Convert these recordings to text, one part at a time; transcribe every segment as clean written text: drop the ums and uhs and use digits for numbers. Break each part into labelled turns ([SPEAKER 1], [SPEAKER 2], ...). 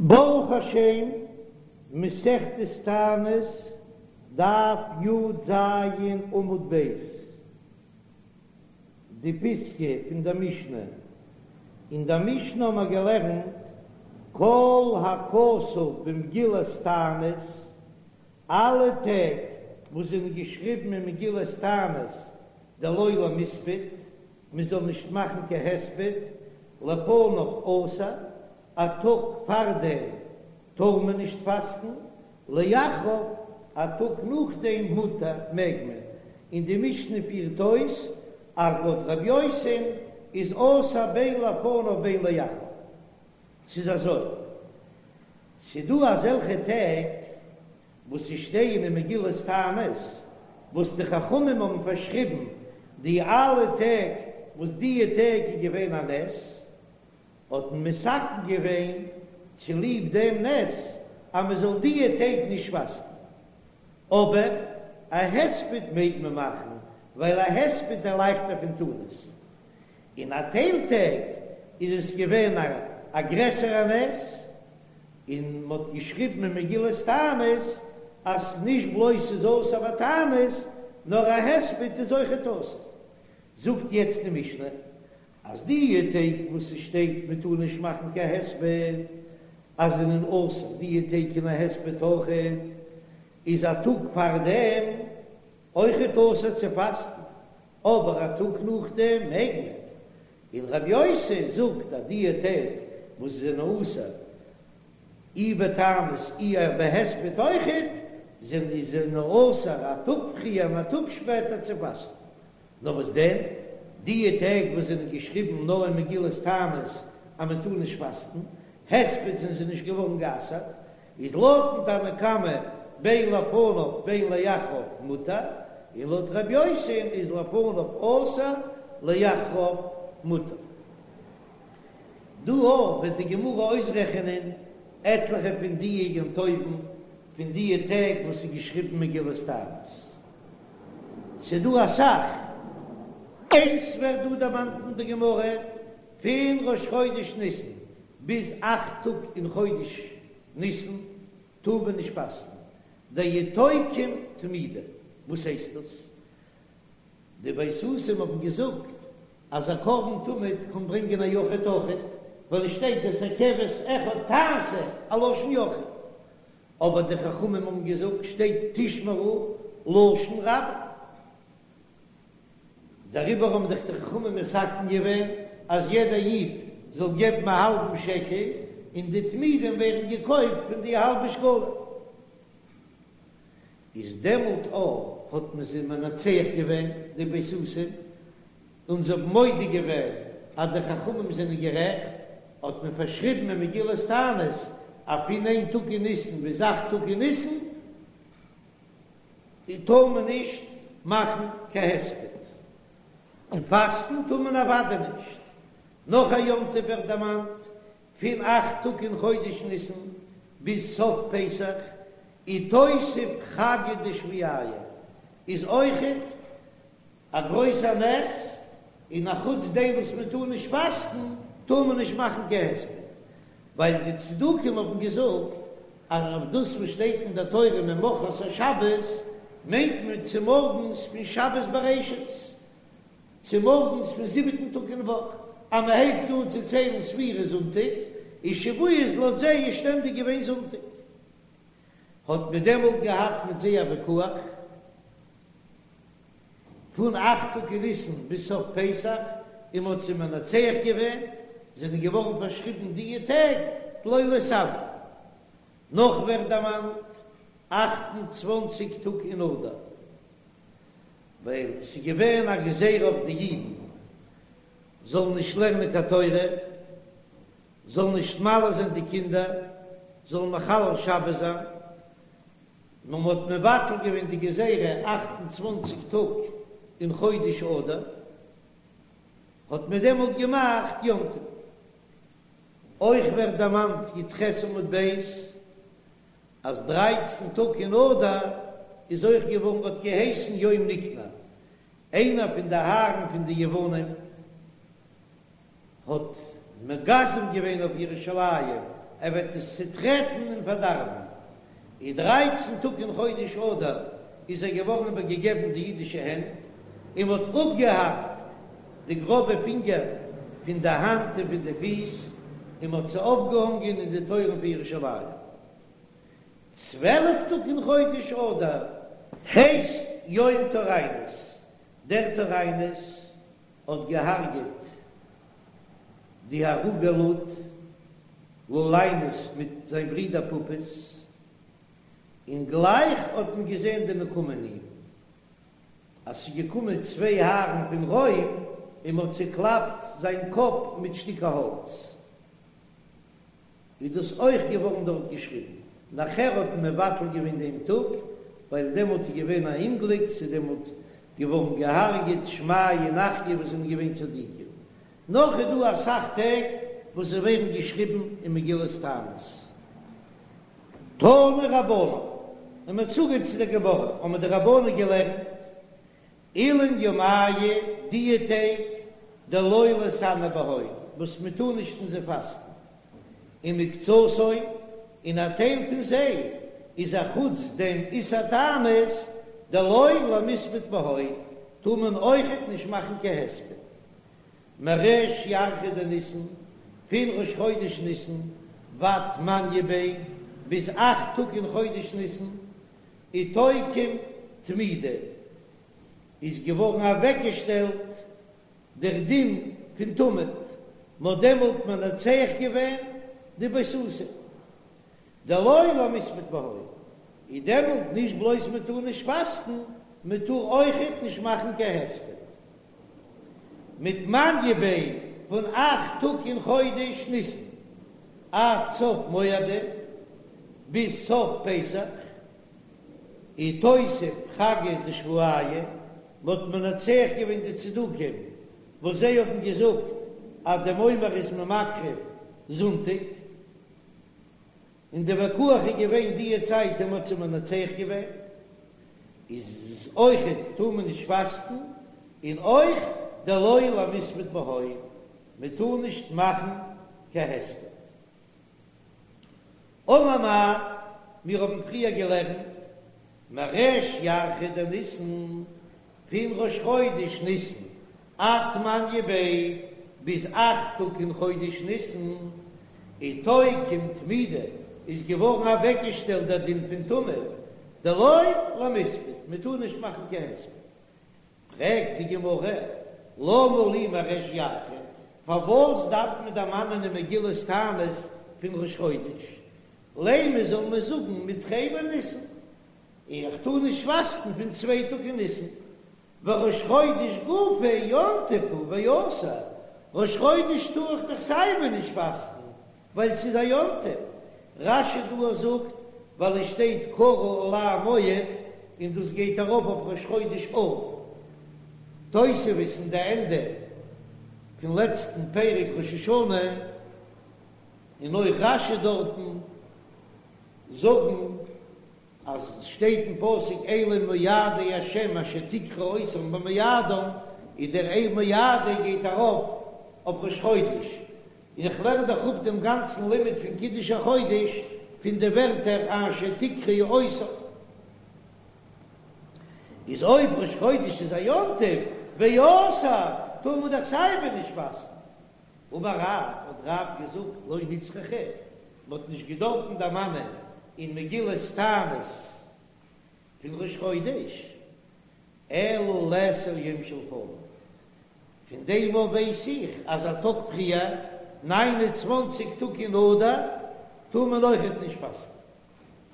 [SPEAKER 1] ברוך השם, מסכת תענית, דף י"ז עמוד ב', די פיסקא פון דער משנה. אין דער משנה האבן מיר געלערנט כל הכתוב במגילת תענית, אלע טעג וואס זענען געשריבן אין מגילת תענית דלא למיספד, מען זאל נישט מאכן קיין הספד, לפניו אסור, א טאג פארדעם טאר מען נישט פאסטן, לאחריו, א טאג נאכדעם מותר, מעג מען, און די משנה פירט אויס אז לויט ר' יוסי'ן איז אסור בין לפניו בין לאחריו. ס'איז אזוי, ס'דא אזעלכע טעג וואס ס'שטייען אין מגילת תענית, וואס די חכמים האבן פארשריבן די אלע טעג וואס דיע טעג איז געווען א נס, האט מען מתקן געווען צוליב דעם נס אז מען זאל דיע טעג נישט פאסטן. אבער א הספד מעג מען מאכן, ווייל א הספד איז לייכטער פון תענית. אין א טייל טעג איז עס געווען א גרעסערע נס, און מען האט געשריבן אין מגילת תענית אז נישט בלויז ס'איז אסור בתענית, נאר א הספד איז אויכעט אסור. זאגט יעצט די משנה אז די טעג וואס ס'שטייט מען טאר נישט מאכן קיין הספד, אז זענען אסור די טעג אין א הספד אויכעט, איז א טאג פארדעם אויכעט אסור צו פאסטן, אבער א טאג נאכדעם מעג מען. און רבי יוסי זאגט אז די טעג וואס זענען אסור אי בתענית אי בהספד אויכעט, זענען זענען אסור א טאג פריער און א טאג שפעטער צו פאסטן. נאר וואס דען, די טעג וואס זענען געשריבן נאר אין מגילת תענית אז מען טאר נישט פאסטן, הספד זענען זיי נישט געווארן גע'אסר'ט, איז לויטן תנא קמא בין לפניו בין לאחריו מותר, און לויט ר' יוסי'ן איז לפניו אסור לאחריו מותר. דא אויך וועט די גמרא אויסרעכענען עטליכע פון דיע יום טובים פון דיע טעג וואס איז געשריבן מגילת תענית. ס'דא אסאך. איינס ווערט דא דערמאנט אין די גמרא, פון ראש חודש ניסן ביז אכט טאג אין חודש ניסן טאר מען נישט פאסטן, דאיתוקם תמידא, וואס הייסט דאס? די בייתוסים האבן געזאגט אז א קרבן תמיד קען ברענגען א יחיד אויכעט, ווייל עס שטייט את הכבש אחד תעשה א לשון יחיד, אבער די חכמים האבן געזאגט שטייט תשמרו לשון רבים. דעריבער האבן זיך די חכמים מתקן געווען אז יעדער איד זאל געבן א האלבן שקל, און די תמידים ווערן געקויפט פון די האלבע שקלים. איז דעמאלט אויך האט מען זיי מנצח געווען די בייתוסים, און זיי האבן מודה געווען אז די חכמים זענען גערעכט, האט מען פארשריבן אין מגילת תענית אז פון איין טאג אין ניסן ביז אכט טאג אין ניסן, טאר מען נישט מאכן קיין הספד, און פאסטן טאר מען אוודאי נישט. נאך א יום טוב ווערט דערמאנט, פון אכט טאג אין חודש ניסן ביז סוף פסח, איתותב חגא דשבועיא, איז אויכעט א גרויסע נס, און א חוץ דעם וואס מען טאר נישט פאסטן, טאר מען נישט מאכן קיין הספד, ווייל די צדוקים האבן געזאגט אז אויף דאס וואס שטייט אין דער תורה ממחרת השבת מיינט מען צומארגנס פון שבת בראשית, צומארגנס פון זיבעטן טאג אין וואך, אז מען הייבט אן צו ציילן ספירה זונטאג, איז שבועות לויט זיי איז שטענדיג געווען זונטאג. האט מען דעמאלט געהאט מיט זיי א ויכוח. פון אכט טאג אין ניסן ביז סוף פסח, און מ'האט זיי מנצח געווען, זענען געווארן פארשריבן דיע טעג דלא להתענא. נאך ווערט דערמאנט 28 טאג אין אדר, ווייל ס'איז געווען א גזירה אויף די אידן זאלן נישט לערנען קיין תורה, זאלן נישט מל זיין די קינדער, זאלן מחלל שבת זיין, נאר מען האט מבטל געווען די גזירה 28 טאג אין חודש אדר, האט מען דעמאלט געמאכט יום טוב. אויך ווערט דערמאנט י"ח עמוד ב' אז דרייצן טאג אין אדר איז אויך געווארן האט געהייסן יום ניקנור, איינער פון די הארן פון די יוונים האט מגזם געווען אויף ירושלים. ער וועט עס צוטרעטן און פארדארבן. און דרייצן טאג אין חודש אדר איז ער געווארן איבערגעגעבן די אידישע הענט, און מען האט אפגעהאקט די גראבע פינגער פון די האנט און פון די פיס, און מען האט זיי אויפגעהאנגען אין די טויערן פון ירושלים. 12 טאג אין חודש אדר הייסט יום טוריינוס, דער טוריינוס האט געהארגעט די הרוגי לוד, לוליינוס מיט זיין ברודער פפוס, און גלייך האט מען געזען די נקמה אין אים, אז ס'איז געקומען צוויי הארן פון רוים און מ'האט צעקלאפט זיין קאפ מיט שטיקער האלץ. איז דאס אויך געווארן דארט געשריבן. נאכער האט מען מבטל געווען דעם טאג, ווייל דעמאלט איז געווען א אומגליק, ס'איז דעמאלט געווארן געהארגעט שמעיה און אחיה וואס זענען געווען צדיקים. נאך איז דא אסאך טעג וואס זיי ווערן געשריבן אין מגילת תענית. תנו רבנן, און מ'האט צוגעהערט צו דער גמרא, האבן די רבנן געלערנט, אילין ימיא דיע טעג דלא ליתענו בהון וואס מען טאר נישט אין זיי פאסטן, ומקצתן און א טייל פון זיי איז א חוץ דעם איסור תענית דלא למיספד בהון טאר מען אויכעט נישט מאכן קיין הספד מריש ירחא דניסן פון ראש חודש ניסן ועד תמניא ביה ביז אכט טאג אין חודש ניסן איתוקם תמידא איז געווארן אוועקגעשטעלט דער דין פון תמיד, מ'האט דעמאלט מנצח געווען די בייתוסים, דלא למיספד בהון, איז דעמאלט נישט בלויז מען טאר נישט פאסטן, מען טאר אויכעט נישט מאכן קיין הספד. מתמניא ביה פון אכט טאג אין חודש ניסן עד סוף מועדא ביז סוף פסח, איתותב חגא דשבועיא, מ'האט מנצח געווען די צדוקים וואס זיי האבן געזאגט אז דעם עומר איז מען מקריב זונטאג, און די ויכוח איז געווען דיע צייט און מ'האט זיי מנצח געווען, איז אויכעט טאר מען נישט פאסטן, און אויך דלא למיספד בהון, מ'טאר נישט מאכן קיין הספד. אמר מר, מיר האבן פריער געלערנט, מריש ירחא דניסן, פון ראש חודש ניסן עד תמניא ביה, ביז אכט טאג אין חודש ניסן, איתוקם תמידא, איז געווארן אוועקגעשטעלט דער דין פון תמיד, דלא למיספד, מען טאר נישט מאכן קיין הספד. פרעגט די גמרא, למה לי מריש ירחא, פארוואס דארף מען דערמאנען אין מגילת תענית פון ראש חודש? לימא זאל מען זאגן מתרי בניסן, איך טאר נישט פאסטן פון צוויי טאג אין ניסן, וראש חודש גופיה יום טוב הוא ואסור, ראש חודש טאר איך דאך סייווי נישט פאסטן, ווייל ס'איז א יום טוב. רש"י דא זאגט ווייל עס שטייט קרא עלי מועד און דאס גייט ארויף אויף ראש חודש אב. תוספות אין די ענדע פון לעצטן פרק ראש השנה און אויך רש"י דארטן זאגן אז עס שטייט אין פסוק אלה מועדי השם אשר תקראו אותם במועדם, איז דער אלה מועדי גייט ארויף אויף ראש חודש, און איך לערן דאך אפ דעם גאנצן לימוד פון קידוש החודש פון די ווערטער אשר תקראו אותם. איז אויב ראש חודש איז א יום טוב ואסור טאר מען דאך סייווי נישט פאסטן. אמר רב, האט רב געזאגט, לא נצרכה, מען האט נישט געדארפן דערמאנען אין מגילת תענית פון ראש חודש, אלא לאסור יום שלפניו, פון דעם אויף ווייס איך אז א טאג פריער, ניין און צוואנציג טאג אין אדר, טאר מען אויכעט נישט פאסטן.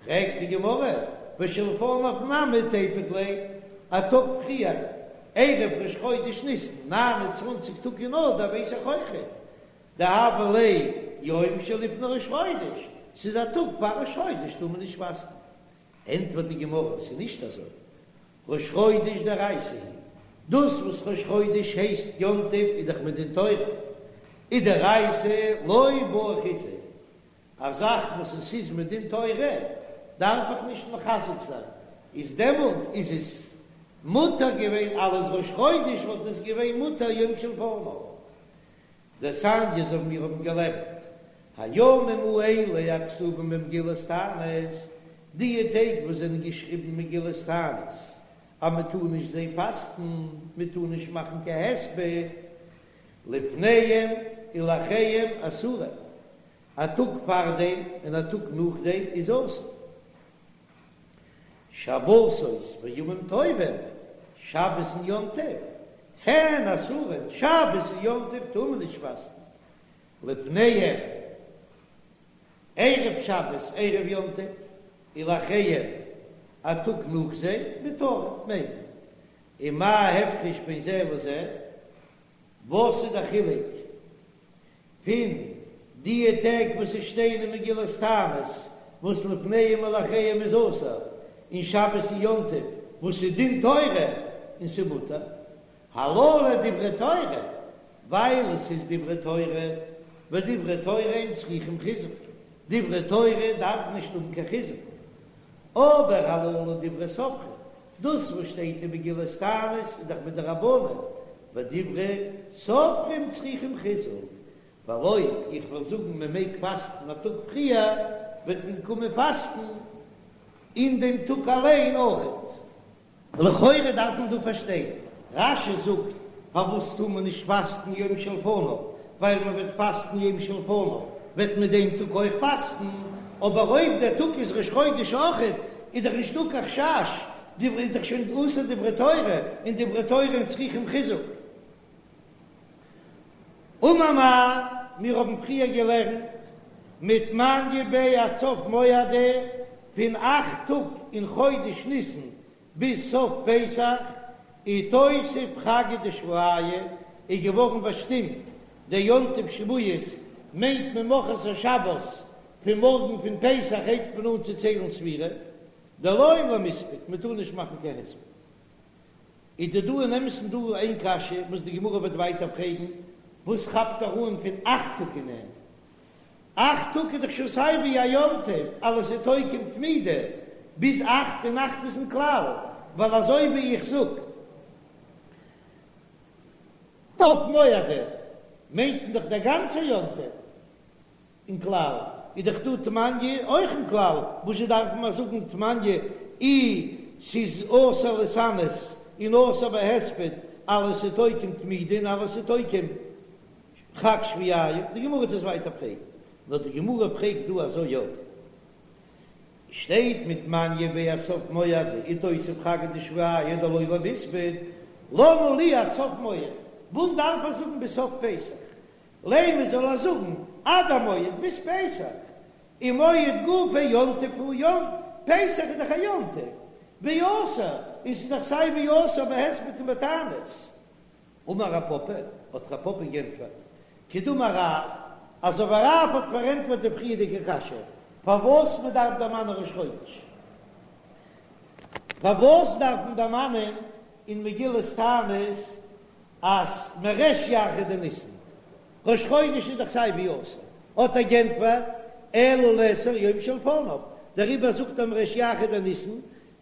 [SPEAKER 1] פרעגט די גמרא, ושלפניו נמי תיפוק ליה, א טאג פריער, ערב ראש חודש ניסן, ניין און צוואנציג טאג אין אדר ווייס איך אויכעט, דהוה ליה יום שלפני ראש חודש, ס'איז א טאג פאר ראש חודש טאר מען נישט פאסטן. ענטפערט די גמרא, ס'איז נישט אזוי, ראש חודש דאורייתא הוא, דאס וואס ראש חודש הייסט יום טוב איז דאך מדין תורה, ודאורייתא לא בעי חיזוק, א זאך וואס עס איז מדין תורה דארף איך נישט מחזק זיין, איז דעמאלט איז עס מותר געווען אלס ראש חודש וואלט עס געווען מותר יום שלפניו. דתניא אזוי ווי מיר האבן געלערנט. הימים האלה הכתובים במגילת תענית, די טעג וואס זענען געשריבן אין מגילת תענית אז מען טאר נישט זיי פאסטן, מען טאר נישט מאכן קיין הספד, לפניהם ולאחריהם אסורים, א טאג פארדעם און א טאג נאכדעם איז אסור. שבתות וימים טובים, שבת און יום טוב, הן אסורים, שבת און יום טוב טאר מען נישט פאסטן, לפניהם, ערב שבת, ערב יום טוב, ולאחריהם, א טאג נאך זיי, מותרים, מעג מען. ומה ההפרש בין זה לזה? וואס איז די חילוק פון דיע טעג וואס עס שטייען אין מגילת תענית וואס לפניהם ולאחריהם איז אסור, און שבת און יום טוב וואס איז דין תורה און ס'איז מותר? הללו דברי תורה, ווייל עס איז דברי תורה, ודברי תורה אין צריכים חיזוק, דברי תורה דארף נישט האבן קיין חיזוק, אבער הללו דברי סופרים, דאס וואס שטייט אין מגילת תענית איז דאך מדרבנן, ודברי סופרים צריכים חיזוק, ווייל אויב איך וועל זאגן מען מעג פאסטן א טאג פריער, וועט מען קומען פאסטן אין דעם טאג אליין אויכעט. לכאורה דארף מען דא פארשטיין, רש"י זאגט פארוואס טאר מען נישט פאסטן יום שלפניו, ווייל מען וועט פאסטן יום שלפניו וועט מען דעם טאג אויך פאסטן, אבער אויב דער טאג איז ראש חודש אויכעט איז דאך נישטא קיין חשש, דברי איז דאך שוין אסור דברי תורה, און דברי תורה אין צריכים חיזוק. אמר מר, מיר האבן פריער געלערנט מתמניא ביה עד סוף מועדא, פון אכט טאג אין חודש ניסן ביז סוף פסח, איתותב חגא דשבועיא, איז געווארן באשטימט דער יום טוב שבועות, מיינט מען ממחרת השבת, פון מארגן פון פסח הייבט מען אן צו ציילן ספירה, דלא למספד, מען טאר נישט מאכן קיין הספד. איז דא דא אין אמת'ן דא איין קשיא וואס די גמרא וועט ווייטער פרעגן, וואס כאפט ער אן פון אכט טאג אין אים? אכט טאג איז דאך שוין סיי ווי א יום טוב, אלעס איז תוקם תמידי ביז אכט און אכט איז אין כלל, ווייל אזוי ווי איך זאג סוף מועדא מיינט מען דאך דער גאנצער יום טוב. אין כלל איז דאך דא תמניא אויך אין כלל, וואס זשע דארף מען זאגן תמניא אי ס'איז אסור להתענות און אסור בהספד אלעס איז תוקם תמידי און אלעס איז תוקם חג שבועיא, די גמרא וועט עס ווייטער פרעגן, נאר די גמרא פרעגט דא אזוי יא שטייט מתמניא ביה עד סוף מועדא איתותב חגא דשבועיא דלא למספד למה לי עד סוף מועד, וואס דארף ער זאגן ביז סוף פסח לימא זאל ער זאגן עד המועד ביז פסח, ומועד גופיה יום טוב הוא יום פסח איז דאך א יום טוב, ואסור, און ס'איז דאך סיי ווי אסור בהספד און בתענית. אמר רב פפא, האט רב פפא גענטפערט, כדאמר רב, אזוי ווי רב האט פארענטפערט די פריערדיגע קשיא, פארוואס מען דארף דערמאנען ראש חודש, פארוואס דארף מען דערמאנען אין מגילת תענית אז מריש ירחא דניסן, ראש חודש איז דאך סיי ווי אסור, האט ער גענטפערט, אלא לאסור יום שלפניו, דעריבער זאגט ער מריש ירחא דניסן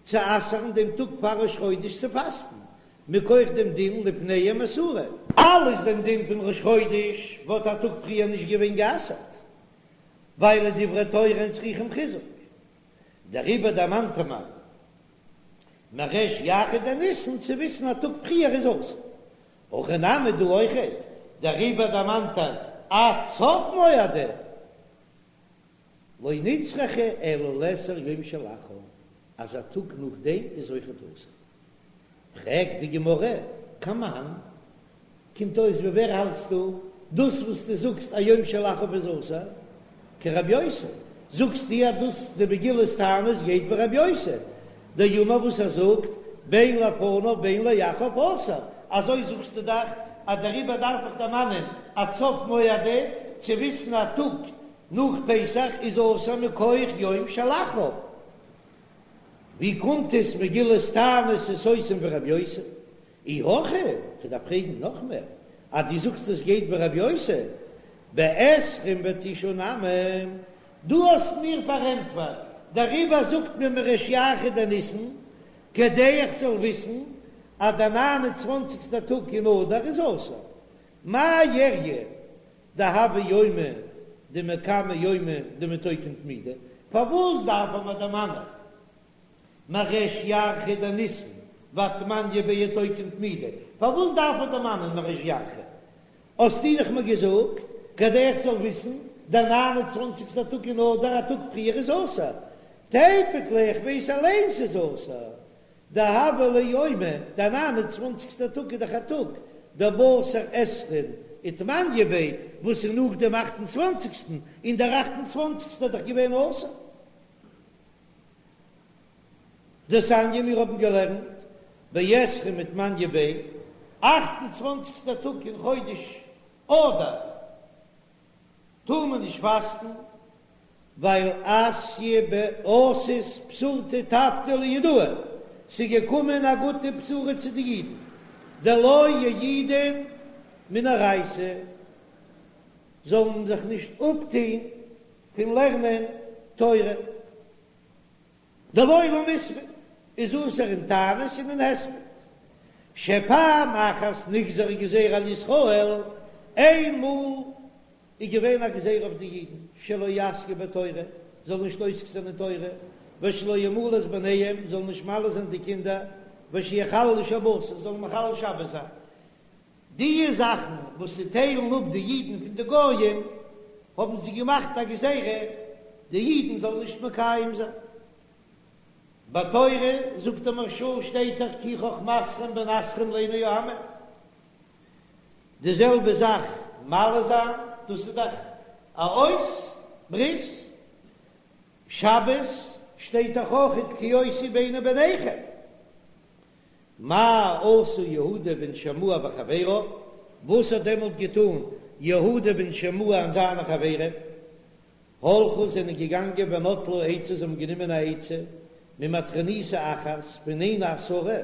[SPEAKER 1] צו אסר'ן דעם טאג פאר ראש חודש צו פאסטן, מכח דעם דין לפניהם אסורין. אלץ דעם דין פון ראש חודש וואלט א טאג פריער נישט געווען גע'אסר'ט, ווייל דברי תורה אין צריכים חיזוק, דעריבער דערמאנט ער מיר מריש ירחא דניסן צו וויסן א טאג פריער איז אסור. הכא נמי דא אויכעט, דעריבער דערמאנט ער עד סוף מועדא, לא נצרכה אלא לאסור יום שלאחר, אז א טאג נאכדעם איז אויכעט אסור. פרעגט די גמרא, כמאן, קומט אויס ווי ווער האלטסטו דאס וואס דו זאגסט א יום שלאחריו איז אסור? כרבי יוסי, זאגסטו אז דאס די מגילת תענית גייט ווי רבי יוסי דאמר וואס ער זאגט בין לפניו בין לאחריו אסור, אזוי זאגסטו דאך אז דעריבער דארף איך דערמאנען עד סוף מועדא צו וויסן א טאג נאך פסח איז אסור מכח יום שלאחריו. ווי קומט עס מגילת תענית איז סותם ווי רבי יוסי? אי הכי, כ'דארף פרעגן נאך מער, אז דו זאגסט עס גייט ווי רבי יוסי, בעשרים ותשעה נמי, דו האסט מיר פארענטפערט, דעריבער זאגט מען מריש ירחא דניסן, כדי איך זאל וויסן אז דער ניין און צוואנציגסטער טאג אין אדר איז אסור. מאי איריא דהוה יומא? דמקמי יומא דמיתוקם תמידא, פארוואס דארף ער מיר דערמאנען מריש ירחא דניסן ועד תמניא ביה איתוקם תמידא, פארוואס דארף ער דערמאנען מריש ירחא? האסטו דאך מיר געזאגט כדי איך זאל וויסן, דער ניין און צוואנציגסטער טאג אין אדר א טאג פריער איז אסור, תיפוק ליה איך ווייס אליין ס'איז אסור, דהוה ליה יומא, דער ניין און צוואנציגסטער טאג איז דאך א טאג, דבתר עשרין ותמניא ביה, וואס איז נאך דעם אכט און צוואנציגסטן, און דער אכט און צוואנציגסטער איז דאך געווען אסור. דתניא מיר האבן געלערנט בעשרין ותמניא ביה, אכט און צוואנציגסטער טאג אין חודש אדר, טאר מען נישט פאסטן, ווייל אתיא אתת בשורתא טבתא ליהודאי, ס'איז געקומען א גוטע בשורה צו די אידן, דלא יעידון מן אורייתא, זאלן זיך נישט אפטוהן פון לערנען תורה. דלא למיספד איז אסור אין תענית און אין הספד. שפעם אחת נגזרה גזירה על ישראל, איין מאל איז געווען א גזירה אויף די אידן שלא יעסקו בתורה, זאלן נישט עוסק זיין אין תורה, ושלא ימולו את בניהם, זאלן נישט מל זיין די קינדער, ושיחללו שבתות, זאלן מחלל שבת זיין. די זאכן וואס ס'טיילן אפ די אידן פון די גויים, האבן זיי געמאכט א גזירה די אידן זאלן נישט מקיים זיין. בתורה, זאגט דער מהרש"א, שטייט דאך כי חכמתכם בינתכם לעיני העמים. די זעלבע זאך מל זיין, דאס איז דאך א אות ברית. שבת שטייט דאך אויכעט כי אות היא ביני וביניכם. מה עשה יהודה בן שמוע וחבריו, וואס האט דעמאלט געטאן יהודה בן שמוע און זיינע חברים? הלכו זענען געגאנגען ונטלו עצה, זיי האבן גענומען א עצה ממטרוניתא אחת פון איין עשרה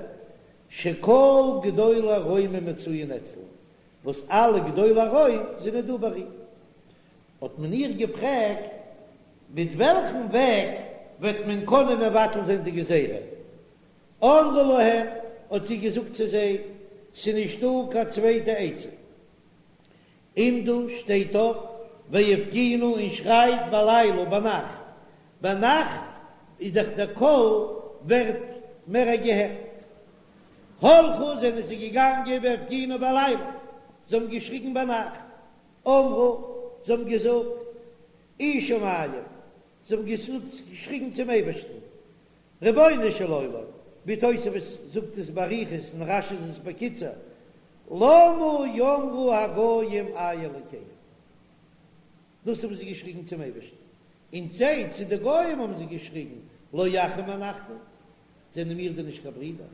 [SPEAKER 1] שכל גדולי רומי מצויין אצלה, וואס אלע גדולי רוים זענען דא ביי איר. האט מען איר געפרעגט מיט וועלכן וועג וועט מען קענען מבטל זיין די גזירה, אמרה להם, האט זי געזאגט צו זיי, ס'נישט דא קיין צווייטע עצה, עמדו, שטייט אויף, והפגינו און שרייט בלילה, ביינאכט, ביינאכט איז דאך דער קול ווערט מער געהערט. הלכו, זענען זיי געגאנגען והפגינו בלילה, זיי האבן געשריגן ביינאכט, אמרו, זיי האבן געזאגט, אי שמים, זיי האבן געשריגן צום אייבערשטן, רבונו של עולם, ווי תוספות זאגט עס באריכות און רש"י איז עס בקיצור, למה יאמרו הגויים איה אלקיהם? דאס האבן זיי געשריגן צום אייבערשטן, און זיי צו די גויים האבן זיי געשריגן, לא אחים אנחנו, זענען מיר דען נישט קיין ברידער?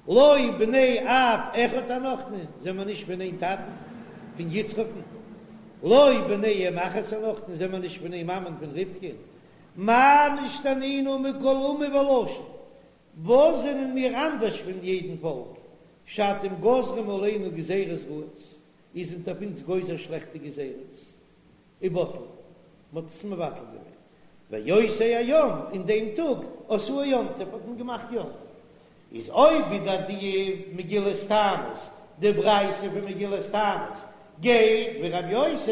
[SPEAKER 1] לא בני אב אחד אנחנו, זענען מיר נישט פון איין טאטן, פון יצחק'ן? לא בני אם אחת אנחנו, זענען מיר נישט פון איין מאמען, פון רבקה'ן? מה נשתנינו מכל אומה ולשון, וואס זענען מיר אנדערש פון יעדן פאלק, שאתם גוזרים עלינו גזירות רעות, איר זענט אויף אונז גוזר שלעכטע גזירות, ובטלו, מען האט עס מבטל געווען, ואותו היום, אין דעם טאג, עשאוהו יום טוב, האט מען געמאכט יום טוב. איז אויב ווידער די מגילת תענית, די ברייתא פון מגילת תענית, גייט ווי רבי יוסי,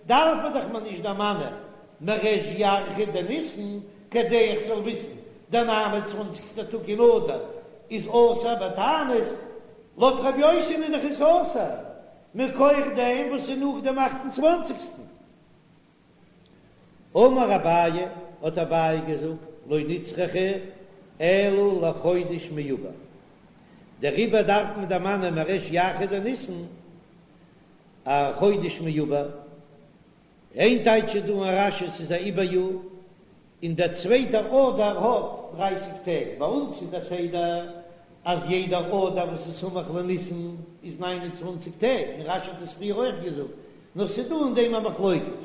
[SPEAKER 1] דארף מען דאך מיר נישט דערמאנען מריש ירחא דניסן, כדי איך זאל וויסן דער ניין און צוואנציגסטער טאג אין אדר איז אסור בתענית, לויט רבי יוסי'ן איז דאך עס אסור מכח דעם וואס איז נאך דעם אכט און צוואנציגסטן. אמר אביי, האט אביי געזאגט, לא נצרכה אלא לחודש מעובר, דעריבער דארף מען דערמאנען מריש ירחא דניסן א חודש מעובר, איין טייטש איז דא אין רש"י ס'איז א עיבור יאר, און דער צווייטער אדר האט דרייסיג טעג, ביי אונז איז דער סדר אז יעדער אדר וואס איז סמוך לניסן איז ניין און צוואנציג טעג, און רש"י האט עס פריער אויך געזאגט, נאר ס'איז דא אין דעם א מחלוקת,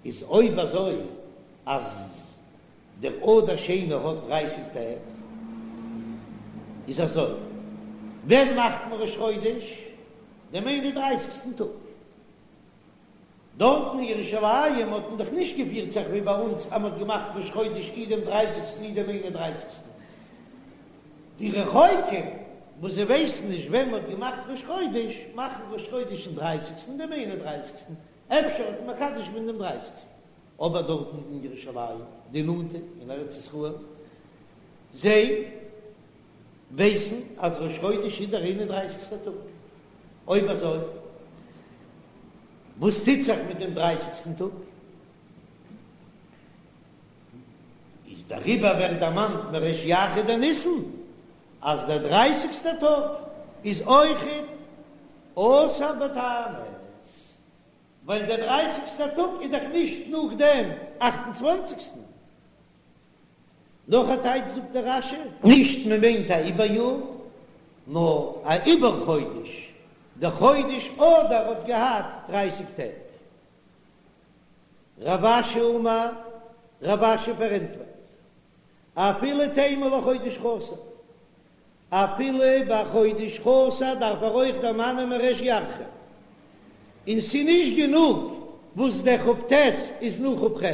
[SPEAKER 1] איז אויב אזוי אז דער אדר שני האט דרייסיג טעג, איז אזוי, ווען מאכט מען ראש חודש? דעם איין און דרייסיגסטן טאג. דארטן אין ירושלים האט מען דאך נישט געפירט זיך ווי ביי אונז אז מען האט געמאכט ראש חודש אי דעם דרייסיגסטן אי דעם איין און דרייסיגסטן. די רחוקים וואס זיי ווייסן נישט ווען מען האט געמאכט ראש חודש, מאכן ראש חודש אין דרייסיגסטן דעם איין און דרייסיגסטן. אפשר האט מען מקדש געווען דעם דרייסיגסטן, אבער דארטן אין ירושלים, די נאנטע אין ארץ ישראל, זיי ווייסן אז ראש חודש איז דער איין און דרייסיגסטער טאג. אויב אזוי, וואס טוט זיך מיט דעם דרייסיגסטן טאג? איז דעריבער ווערט דערמאנט מריש ירחא דניסן אז דער דרייסיגסטער טאג איז אויכעט אסור בתענית, ווייל דער דרייסיגסטער טאג איז דאך נישט נאך דעם אכט און צוואנציגסטן. נאך א טייטש זאגט דער רש"י, נישט מען מיינט א עיבור יאר, נאר א עיבור חודש, דער חודש אדר האט געהאט דרייסיג טעג. רב אשי אמר, רב אשי פארענטפערט, אפילו תימא לחודש חסר, אפילו ביי חודש חסר דארף ער אויך דערמאנען מריש ירחא, און ס'נישט גענוג וואס דער כ"ט איז נאך כ"ח.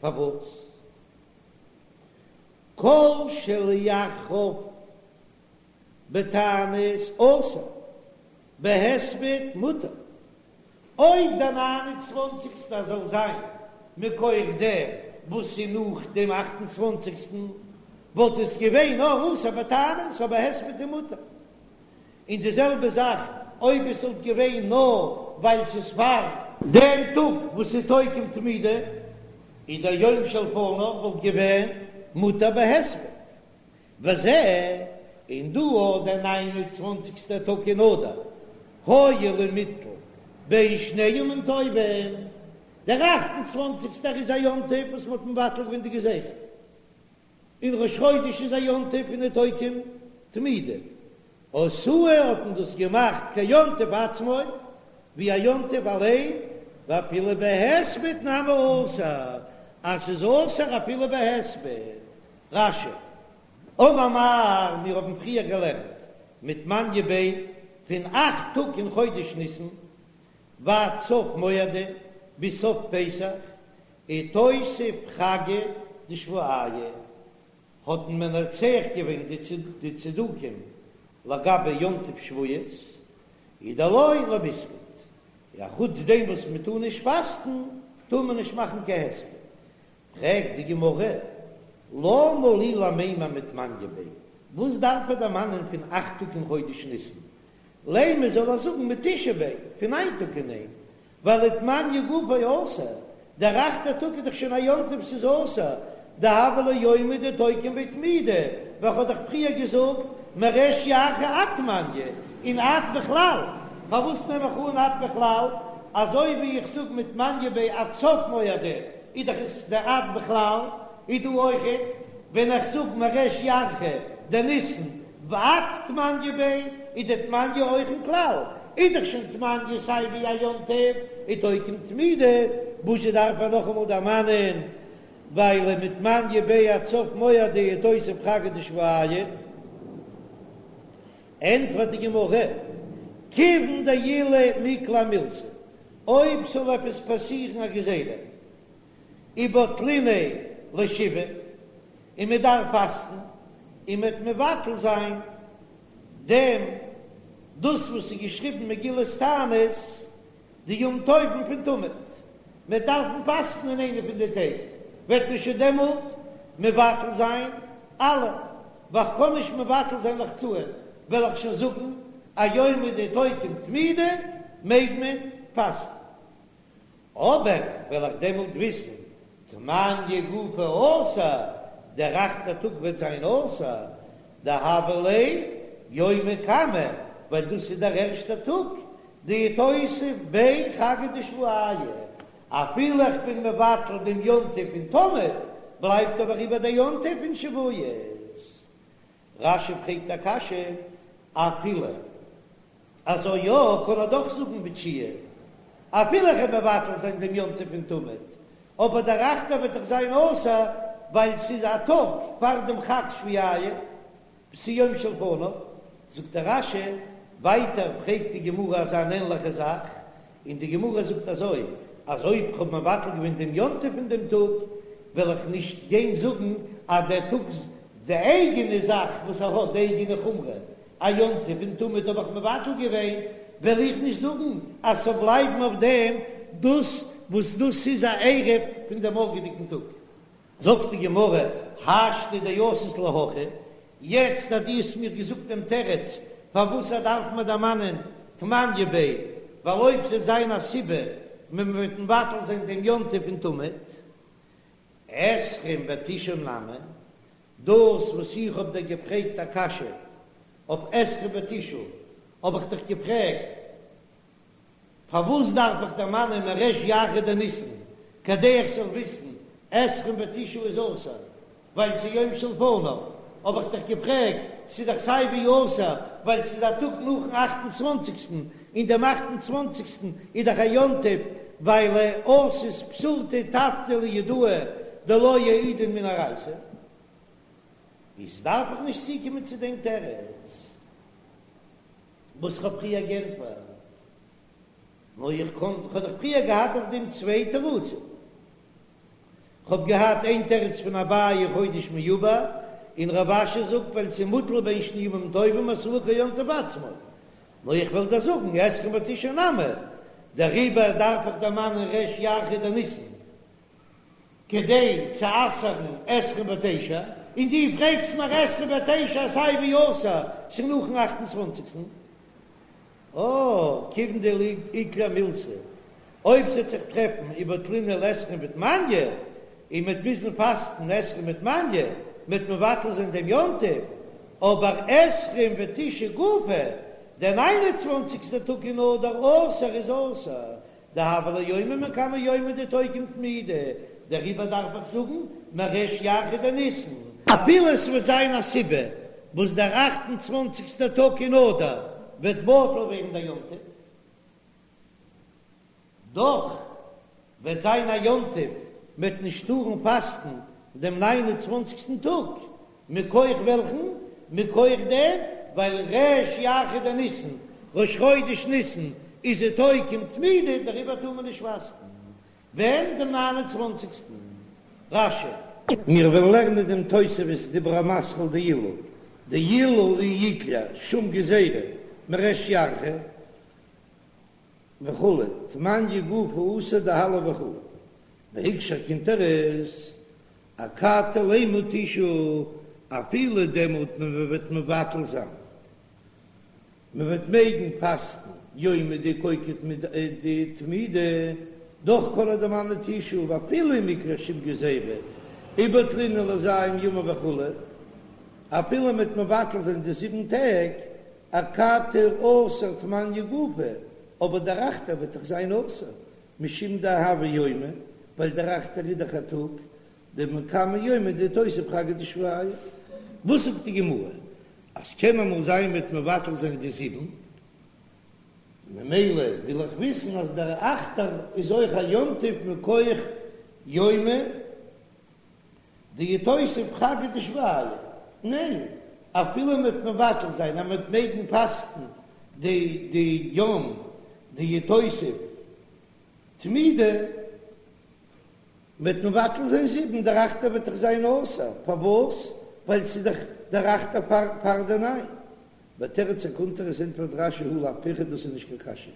[SPEAKER 1] פארוואס? כל שלאחריו בתענית אסור, בהספד מותר. אויב דער ניין און צוואנציגסטער זאל זיין מכח דעם וואס איז נאך דעם אכט און צוואנציגסטן, וואלט עס געווען נאר אסור בתענית, אבער הספד איז מותר. און די זעלבע זאך אויב עס וואלט געווען נאר ווייל ס'איז פאר דעם טאג וואס איז תוקם תמידא, איז דער יום שלפניו וואלט געווען מותר בהספד. וזה, און דא אויך דער ניין און צוואנציגסטער טאג אין אדר, הואיל ומיטל בין שני ימים טובים, דער אכט און צוואנציגסטער איז א יום טוב וואס מ'האט מבטל געווען די גזירה, און ראש חודש איז א יום טוב פון תוקם תמידא, עשאוהו האט מען דאס געמאכט כיום טוב עצמו, ווי א יום טוב אליין, ואפילו בהספד נמי אסור, אז ס'איז אסור אפילו בהספד. רש"י, אמר מר, מיר האבן פריער געלערנט מתמניא ביה פון אכט טאג אין חודש ניסן ועד סוף מועדא ביז סוף פסח, איתותב חגא דשבועיא, האט מען מנצח געווען די צדוקים לגבי יום טוב שבועות, איז דלא למיספד, א חוץ דעם וואס מען טאר נישט פאסטן, טאר מען נישט מאכן קיין הספד. פרעגט די גמרא, למה לי למימר מתמניא ביה, וואס דארף ער דערמאנען פון אכט טאג אין חודש ניסן? לימא זאל ער זאגן מתשעה ביה, פון ניין טאג און איין, ווייל ותמניא גופיה אסור, דער אכטער טאג איז דאך שוין א יום טוב ס'איז אסור, דהוה ליה יומא דתוקם ביה תמידא, ווי כ'האב דאך פריער געזאגט מריש ירחא עד תמניא, און עד בכלל, פארוואס נעם איך אן עד בכלל, אזוי ווי איך זאג מתמניא ביה עד סוף מועדא, איז דאך עס דער עד בכלל, איז דא אויכעט ווען איך זאג מריש ירחא דניסן ועד תמניא ביה, איז די תמניא אויך אין כלל, איז דאך שוין תמניא סיי ווי א יום טוב איז תוקם תמידא, וואזשע דארף ער נאכאמאל דערמאנען ווייל מתמניא ביה עד סוף מועדא איתותב חגא דשבועיא. ענטפערט די גמרא, כיוון דעילא מיקלע מילתא, אויב ס'זאל עפעס פאסירן א גזירה, ובטליניה לשבעה, און מען דארף פאסטן, און מען וועט מבטל זיין דעם דאס וואס איז געשריבן מגילת תענית, די יום טובים פון תמיד, מען דארפן פאסטן אין איינע פון די טעג, וועט מען שוין דעמאלט מבטל זיין אלע, ווייל כ'קען נישט מבטל זיין לחצאין, וועל איך שוין זאגן א יומא דתוקם תמידא מעג מען פאסטן. אבער וועל איך דעמאלט וויסן תמניא גופיה אסור, דער אכטער טאג וועט זיין אסור, דהוה ליה יומא קמא, ווייל דאס איז דער ערשטער טאג, דאיתותב ביה חגא דשבועיא, אפילו איך בין מבטל דעם יום טוב פון תמיד, בלייבט אבער איבער דער יום טוב פון שבועות. רש"י פרעגט א קשיא, אפילו אזוי יא, קען ער דאך זאגן בתשיעי, אפילו איך וועל מבטל זיין דעם יום טוב פון תמיד, אבער דער אכטער וועט דאך זיין אסור, ווייל ס'איז א טאג פאר דעם חג שבועיא, ס'איז יום שלפניו, זאגט דער רש"י, ווייטער פרעגט די גמרא אזא אן ענליכע זאך, און די גמרא זאגט אזוי, אז אויב כ'האב מבטל געווען דעם יום טוב פון דעם טאג, וועל איך נישט גיין זאגן אז דער טאג די אייגענע זאך וואס ער האט, די אייגענע חומרא, א יום טוב פון תמיד האב איך מבטל געווען, וועל איך נישט זאגן אז ס'זאל בלייבן אויף דעם דאס וואס דאס איז א ערב פון דעם מארגעדיגן טאג. זאגט די גמרא, השתא דאתית להכי, יעצט אז דו האסט מיר געזאגט דעם תירוץ פארוואס ער דארף מען דערמאנען תמניא ביה, ווייל אויב ס'וועט זיין א סיבה מען וועט מבטל זיין דעם יום טוב פון תמיד, עשרים ותשעה נמי, דאס וואס איך האב דיר געפרעגט א קשיא אויף עשרים ותשעה האב איך דיך געפרעגט פארוואס דארף איך דערמאנען מריש ירחא דניסן כדי איך זאל וויסן עשרים ותשעה איז אסור ווייל ס'איז יום שלפניו, האב איך דיך געפרעגט ס'איז דאך סיי ווי אסור ווייל ס'איז א טאג נאכן אכט און צוואנציגסטן און דעם אכט און צוואנציגסטן איז דאך א יום טוב ווייל אתת פתורתא טבתא ליהודאי דלא יעידון מן אורייתא איז דארף איך נישט צוקומען צו דעם תירוץ. וואס כ'האב פריער גענטפערט, נאר איך קען, כ'האב דאך פריער געהאט אויף דעם צוויי תירוצים. כ'האב געהאט איין תירוץ פון אביי חודש מעובר, און רב אשי זאגט ווייל ס'איז מוטל בין שני ימים טובים עשאוהו כיום טוב עצמו. נאר איך וועל דיר זאגן עשרים ותשעה נמי, דעריבער דארף איך דערמאנען ריש ירחא דניסן. כדי צו אסר'ן עשרים ותשע, און דו פרעגסט מיר עשרים ותשע סיי ווי אסור, ס'איז נאכן אכט און צוואנציגסטן. אה, כיוון דאיקלע מילתא, אויב ס'עט זיך טרעפן ובטלינהו לעשרים ותמניא, און מ'עט מוזן פאסטן עשרים ותמניא, מ'עט מבטל זיין דעם יום טוב, אבער עשרים ותשעה גופא, דער ניין און צוואנציגסטער טאג אין אדר אסור איז אסור, דהוה ליה יומא מקמי יומי דאיתוקם תמידא, דעריבער דארף איך זאגן מריש ירחא דניסן. אפילו עס וועט זיין א סיבה וואס דער אכט און צוואנציגסטער טאג אין אדר וועט בטל ווערן דער יום טוב, דאך וועט זיין א יום טוב, מ'וועט נישט טארן פאסטן דעם ניין און צוואנציגסטן טאג, מכח וועלכן? מכח דעם ווייל ריש ירחא דניסן, ראש חודש ניסן, איז איתוקם תמידא, דעריבער טאר מען נישט פאסטן ווען? דעם ניין און צוואנציגסטן. רש"י.
[SPEAKER 2] מיר וועלן לערנען דעם תוספות דיבור המתחיל דאילו דאילו אי איקלע שום גזירה מריש ירחא וכו' תמניא גופא אסור דהלל וכו' והקשה הקונטרס אכתי לימא תשעה, אפילו דעמאלט מען וועט מבטל זיין, מען וועט מעגן פאסטן יומא דאיתוקם תמידא, דאך קען ער דערמאנען תשעה, ואפילו אם איקלע שום גזירה, ובטלינהו לז' ימים וכו', אפילו מען וועט מבטל זיין די זיבן טעג, אכתי אסור תמניא גופא, אבער דער אכטער וועט דאך זיין אסור, משום דהוה יומא, ווייל דער אכטער איז דאך א טאג, דמקמי יומי דאיתותב חגא דשבועיא. וואס זאגט די גמרא? אז קען אמאל זיין מ'וועט מבטל זיין די זיבן, ממילא וויל איך וויסן אז דער אכטער איז אויך א יום טוב מכח יומא דאיתותב חגא דשבועיא. ניין, אפילו מ'וועט מבטל זיין אז מ'וועט מעגן פאסטן די די יום דאיתותב תמידא, מ'וועט מבטל זיין זיבן, דער אכטער וועט דאך זיין אסור, פארוואס? ווייל ס'איז דאך דער אכטער פאר פאר די ניין. ותירץ הקונטרס ענטפערט רש"י הא לאו פירכא דאס איז נישט קיין קשיא,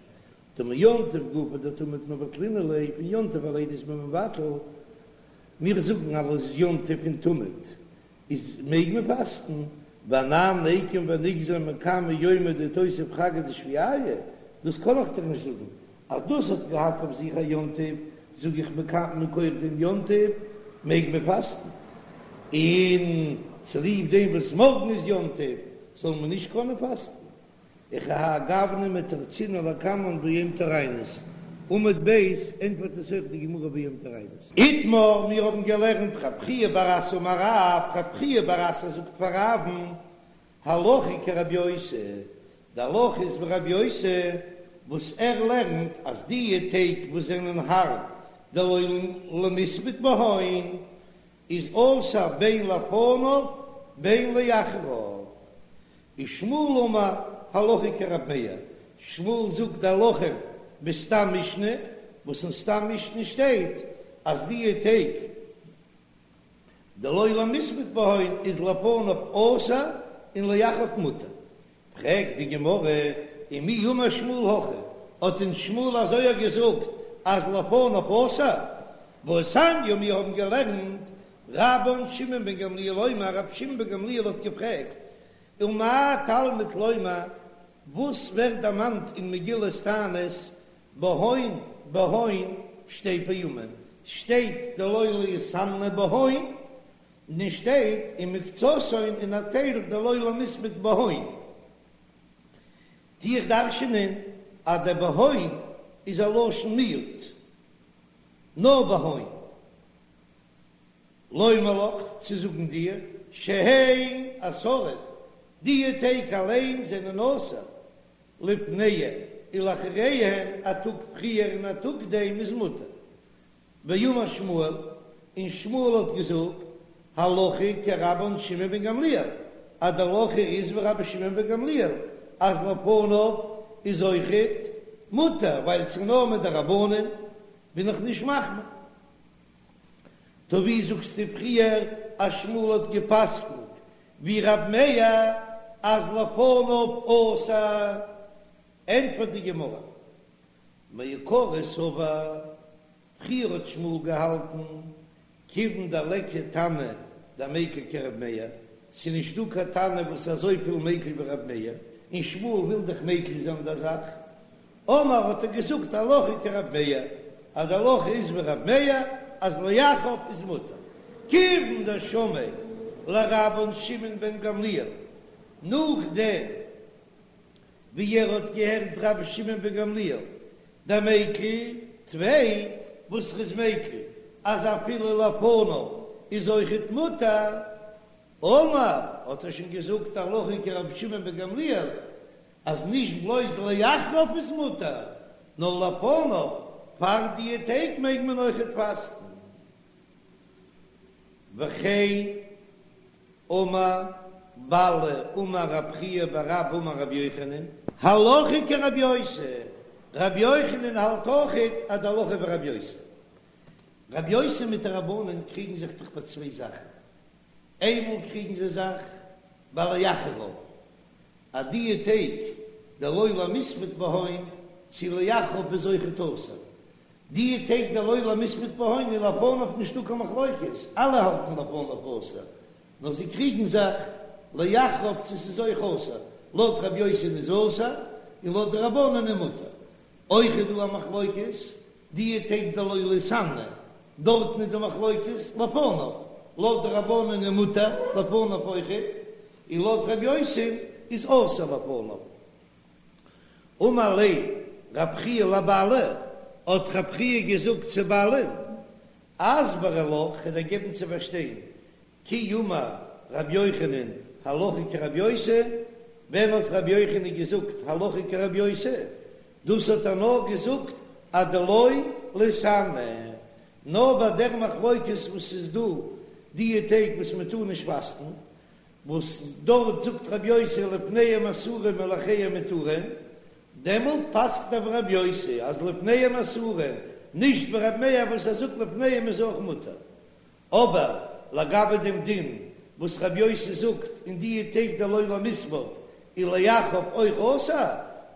[SPEAKER 2] דמיום טוב גופא דתמיד מבטלינן ליה, פון יום טוב אליין איז מען מבטל, מיר זאגן אז יום טוב פון תמיד איז מעג מען פאסטן, ואנן ניקום ונגזור מקמי יומא דאיתותב חגא דשבועיא, דאס קען איך דאך נישט זאגן, אז דאס האט געהאט אויף זיך א יום טוב, זאג איך מכח דעם יום טוב מעג מען פאסטן, און צוליב דעם וואס מארגן איז יום טוב זאל מען נישט קענען פאסטן. וכהאי גוונא מתרצינן לקמן ביום טוריינוס, עמוד ב' ענטפערט עס אויך די גמרא ביום טוריינוס.
[SPEAKER 1] איתמר, מיר האבן געלערנט רב חייא בר אסי אמר רב, רב חייא בר אסי זאגט פאר רב'ן, הלכה כרבי יוסי, די הלכה איז ווי רבי יוסי וואס ער לערנט אז די טעג וואס זענען הארב דלא למספד בהון איז אסור בין לפניו בין לאחריו, ושמואל אמר הלכה כרב מאיר, שמואל זאגט די הלכה בסתם משנה, וואס אין סתם משנה שטייט אז די טעג דלא למספד בהון איז לפניו אסור און לאחריו מותר, פרעגט די גמרא.
[SPEAKER 2] ומי אמר שמואל הכי, האט אונז שמואל אזוי געזאגט אז לפניו אסור, והתניא מיר האבן געלערנט רבן שמעון בן גמליאל אומר, רבי שמעון בן גמליאל האט געפרעגט, ומה תלמוד לומר, וואס ווערט דערמאנט אין מגילת תענית בהון בהון שתי פעמים, שטייט דלא ליתענה בהון, און שטייט ומקצתן און א טייל דלא למיספד בהון. טו איך דרש'ענען אז דער בהון איז א לשון מיעוט, נאר בהון. לומר לך, צו זאגן דיר, שהן אסורין, די טעג אליין זענען אסור, לפניהן ולאחריהן, א טאג פריער און א טאג נאכדעם איז מותר. ואמר שמואל, און שמואל האט געזאגט, הלכה כרבן שמעון בן גמליאל, אז די הלכה איז ווי רבי שמעון בן גמליאל, אז לפניו איז אויכעט מותר, ווייל ס'איז נאר מדרבנן, בין איך נישט מחמיר. טא ווי זאגסטו פריער אז שמואל האט גע'פסק'נט ווי רב מאיר אז לפניו אסור? ענטפערט די גמרא, מעיקרא סבר, פריער האט שמואל געהאלטן כיוון דליכא תנא דמיקל כרב מאיר, ס'איז נישט דא קיין תנא וואס איז אזויפיל מיקל ווי רב מאיר, און שמואל וויל דאך מיקל זיין די זאך, אמר האט ער געזאגט הלכה כרב מאיר, אז די הלכה איז ווי רב מאיר אז לאחריו איז מותר, כיוון דשמעיה לרבן שמעון בן גמליאל, נאכדעם ווי ער האט געהערט רבי שמעון בן גמליאל דמיקל טפי וואס ר'איז מיקל אז אפילו לפניו איז אויכעט מותר, אמר האט ער שוין געזאגט הלכה כרבי שמעון בן גמליאל אז נישט בלויז לאחריו איז מותר, נאר לפניו פאר די טעג מעג מען אויכעט פאסטן. וכן אמר באלי אמר רב חייא בר אבא אמר רבי יוחנן, הלכה כרבי יוסי, רבי יוחנן האלט אויכעט אז די הלכה ווי רבי יוסי. רבי יוסי מיט די רבנן קריגן זיך דאך ביי צוויי זאכן, איינמאל קריגן זיי זיך ביי לאחריו, אז די טעג דלא למיספד בהון צו לאחריו איז אויכעט אסור, די טעג דלא למיספד בהון איז לפניו נישטא קיין מחלוקת, אלע האלטן לפניו אסור, נאר זיי קריגן זיך לאחריו צו ס'איז אויך אסור, לויט רבי יוסי'ן איז אסור און לויט די רבנן איז מותר. אויך איז דא א מחלוקת די טעג דלא ליתענה, דארטן איז די מחלוקת לפניו, לויט די רבנן איז מותר לפניו אויכעט, און לויט רבי יוסי'ן איז אסור לפניו. אמר ליה רב חייא לבאלי, האט רב חייא געזאגט צו באלי'ן, אסברא לך, כ'וועל דיר געבן צו פארשטיין, כי אמר רבי יוחנן הלכה כרבי יוסי, ווען האט רבי יוחנן געזאגט הלכה כרבי יוסי? דאס האט ער נאר געזאגט אדלא ליתענה, נאר ביי דער מחלוקת וואס איז דא דיע טעג וואס מען טאר נישט פאסטן, וואס דארט זאגט רבי יוסי לפניהם אסורים ולאחריהם מותרים, דעמאלט פסק'ט ער ווי רבי יוסי אז לפניהם אסורים, נישט ווי רבי מאיר וואס ער זאגט לפניהם איז אויך מותר. אבער לגבי דעם דין וואס רבי יוסי זאגט אין דיע טעג דלא למיספד איז לאחריו אויך אסור,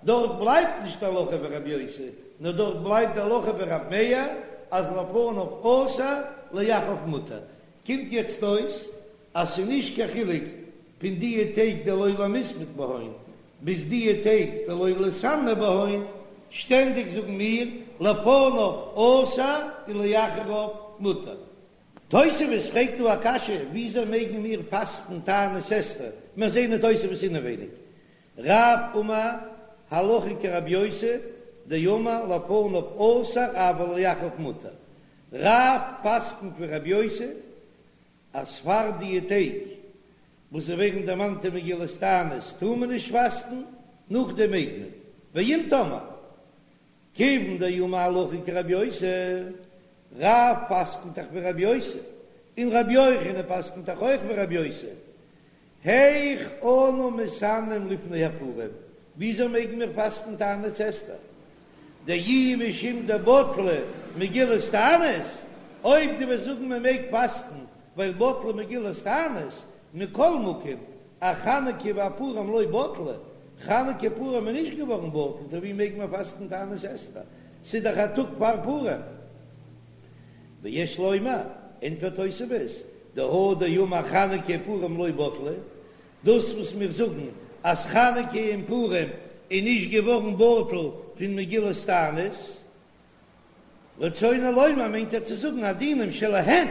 [SPEAKER 2] דארט בלייבט נישט הלכה ווי רבי יוסי, נאר דארט בלייבט די הלכה ווי רבי מאיר אז לפניו אסור לאחריו מותר. קומט יעצט אויס אז ס'איז נישט קיין חילוק פון דיע טעג דלא למיספד בהון ביז דיע טעג דלא ליתענה בהון, שטענדיג זאגן מיר לפניו אסור ולאחריו מותר. תוספות פרעגט דא א קשיא, וויאזוי מעגן מיר פאסטן תענית אסתר, מיר זעהן אין תוספות אינעווייניג, רב אמר הלכה כרבי יוסי דאמר לפניו אסור אבל לאחריו מותר, רב פסק'נט ווי רבי יוסי אז פאר דיע טעג וואס זיי ווערן דערמאנט אין מגילת תענית טאר מען נישט פאסטן, נאכדעם מעג מען, ואם תאמר כיוון דאמר הלכה כרבי יוסי, רב פסק'נט דאך ווי רבי יוסי, און רבי יוחנן פסק'נט דאך אויך ווי רבי יוסי, היאך אנו מתענין לפני הפורים, וויאזוי מעגן מיר פאסטן תענית אסתר? דאי משום דבטלה מגילת תענית, אויב דו וועסט זאגן מען מעג פאסטן ווייל בטלה מגילת תענית, מכל מקום, אחנוכה ואפורים לא בטלה. חנוכה פורים איז נישט געווארן בטל, טא ווי מעג מען פאסטן תענית אסתר? ס'איז דאך א טאג פאר פורים. ויש לומר, ענטפערט תוספות, דהא דאמר חנוכה ופורים לא בטלו, דאס וואס מיר זאגן אז חנוכה און פורים איז נישט געווארן בטל פון מגילת תענית, רצונו לומר מיינט ער צו זאגן הדינים שלהן,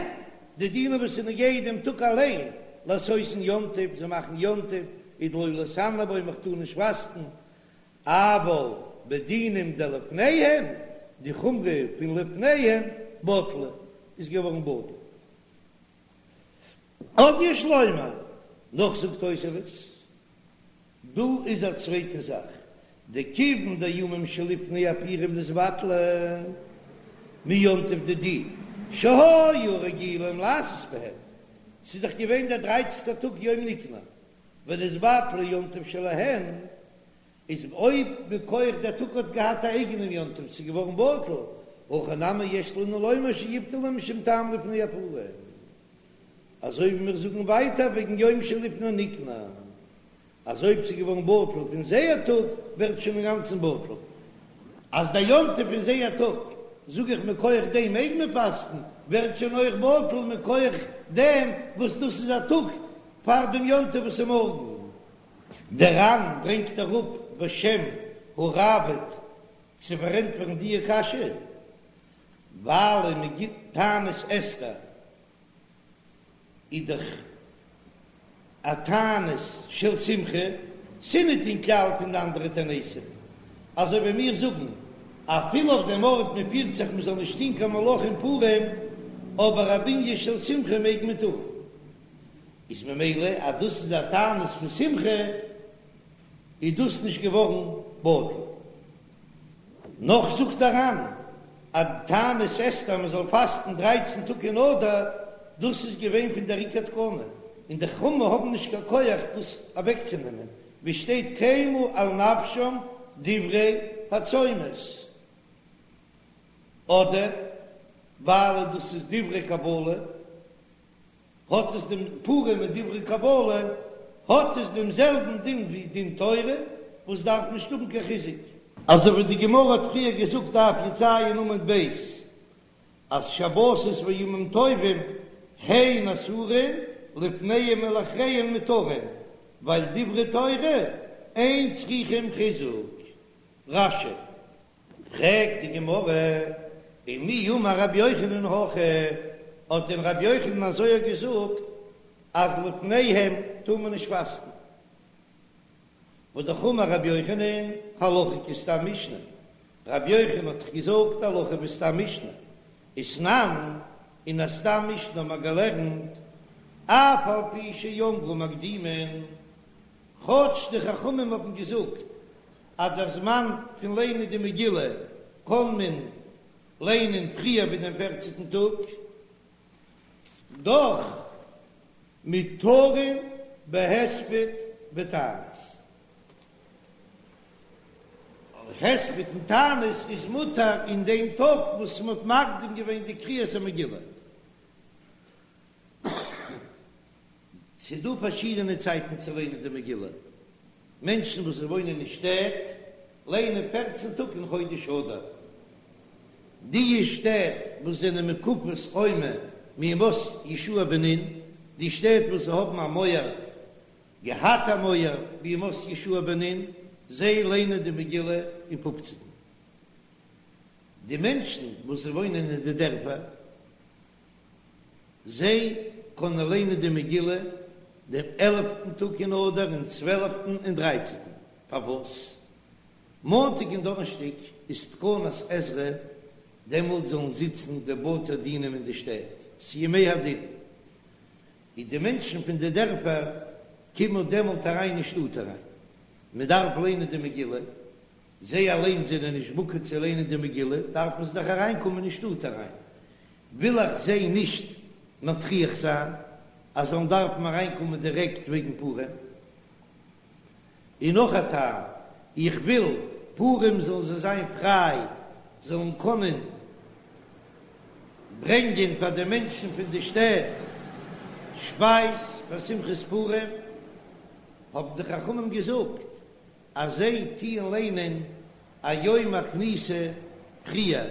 [SPEAKER 2] די דינים וואס איז נוגע דעם טאג אליין, לעשותן יום טוב, זיי מאכן יום טוב, ודלא להתענאה בו, מען טאר נישט פאסטן, אבל בדינים דלפניהם, די חומרא פון לפניהם, בטלה, איז געווארן בטל. עוד יש לומר, נאך זאגט תוספות, דא איז א צווייטע זאך, דכיון דימים שלפני הפורים נתבטלו מיום טוב דידהו שהיו רגילים לעשות בהם, ס'איז דאך געווען דער דרייצנטער טאג יום ניקנור, ונתבטל יום טוב שלהן, איז אויב מכח דער טאג האט געהאט א אייגענעם יום טוב ס'איז געווארן בטל, הכא נמי יש לנו לומר שיבטלו משום טעם לפני הפורים, אזוי ווי מיר זאגן ווייטער וועגן יום שלפני ניקנור, אז אויב ס'איז געווארן בטל פון זייער טאג ווערט שוין אינגאנצן בטל, אז דער יום טוב פון זייער טאג, זאג איך מכח דעם מעג מען פאסטן, ווערט שוין אויך בטל מכח דעם וואס דאס איז א טאג פאר דעם יום טוב וואס איז מארגן. דער ר"ן ברענגט אראפ בשם הראב"ד צו פארענטפערן דיע קשיא, ווייל אין מגילת תענית אסתר איז דאך א תענית של שמחה, ס'ניט אין כלל פון די אנדערע תעניתים, אזוי ווי מיר זאגן אפילו אויף דעם ארט מען פירט זיך מען זאל נישט טון קיין מלאכה אין פורים, אבער א בנין של שמחה מעג מען טון. איז ממילא אז דאס איז א תענית פון שמחה איז דאס נישט געווארן בטל. נאך זאגט דער ר"ן אז תענית אסתר מען זאל פאסטן דרייצן טאג אין אדר, דאס איז געווען פון דער עיקר תקנה, און די חכמים האבן נישט קיין כח דאס אוועקצונעמען, ווי שטייט קיימו על נפשם דברי הצומות, אדער ווייל דאס איז דברי קבלה. האט עס דעם פורים מיט דברי קבלה, האט עס דעם זעלבן דין ווי דין תורה, וואס דארף נישט האבן קיין חיזוק. אזוי ווי די גמרא האט פריער געזאגט דף י"ז עמוד ב', אז שבתות וימים טובים הן אסורין לפניהם ולאחריהם מותרין, ווייל דברי תורה אין צריכים חיזוק. רש"י. פרעגט די גמרא, ומי אמר רבי יוחנן הכי, האט דען רבי יוחנן אזוי געזאגט אז לפניהם טאר מען נישט פאסטן? והא אמר רבי יוחנן, הלכה כסתם משנה, רבי יוחנן האט דאך געזאגט הלכה ווי סתם משנה, ותנן, אין א סתם משנה האט מען געלערנט, אף על פי שאמרו מקדימין, כאטש די חכמים האבן געזאגט אז דער זמן פון ליינען די מגילה קען מען ליינען פריער ווי דעם פערצנטן טאג, דאך מותרין בהספד ותענית. הספד און תענית איז מותר אין דעם טאג וואס מען האט מקדים געווען די קריאת המגילה. ס'איז דא פארשידענע צייטן צו ליינען די מגילה. מענטשן וואס וואוינען אין שטעט ליינען פערצן טאג אין חודש אדר. די שטעט וואס זענען מוקפות חומה מימות יהושע בן נון, די שטעט וואס האבן א מויער, געהאט א מויער בימות יהושע בן נון, זיי ליינען די מגילה אין פופצנטן. די מענטשן וואס וואוינען אין די דערפער, זיי קענען ליינען די מגילה דעם עלפטן טאג אין אדר און צוועלפטן און דרייצנטן. פארוואס מאנטאג און דאנערשטאג איז תקנת עזרא, דעמאלט זאלן זיצן די בתי דינים אין די שטעט, ס'ימי הדין, און די מענטשן פון די דערפער קומען דעמאלט אריין אין שטאט אריין, מען דארף ליינען די מגילה, זיי אליין זענען נישט בקי צו ליינען די מגילה, דארפן זיי דאך אריינקומען אין שטאט אריין, וויל איך זיי נישט מטריח זיין אז זאלן דארפן אריינקומען דירעקט וועגן פורים. און נאך א טעם, איך וויל פורים זאלן זיי זיין פריי, זאלן קענען ברענגען פאר די מענטשן פון די שטעט שפייז פאר שמחת פורים, האבן די חכמים געזאגט. אז זיי טוען ליינען א יום הכניסה פריער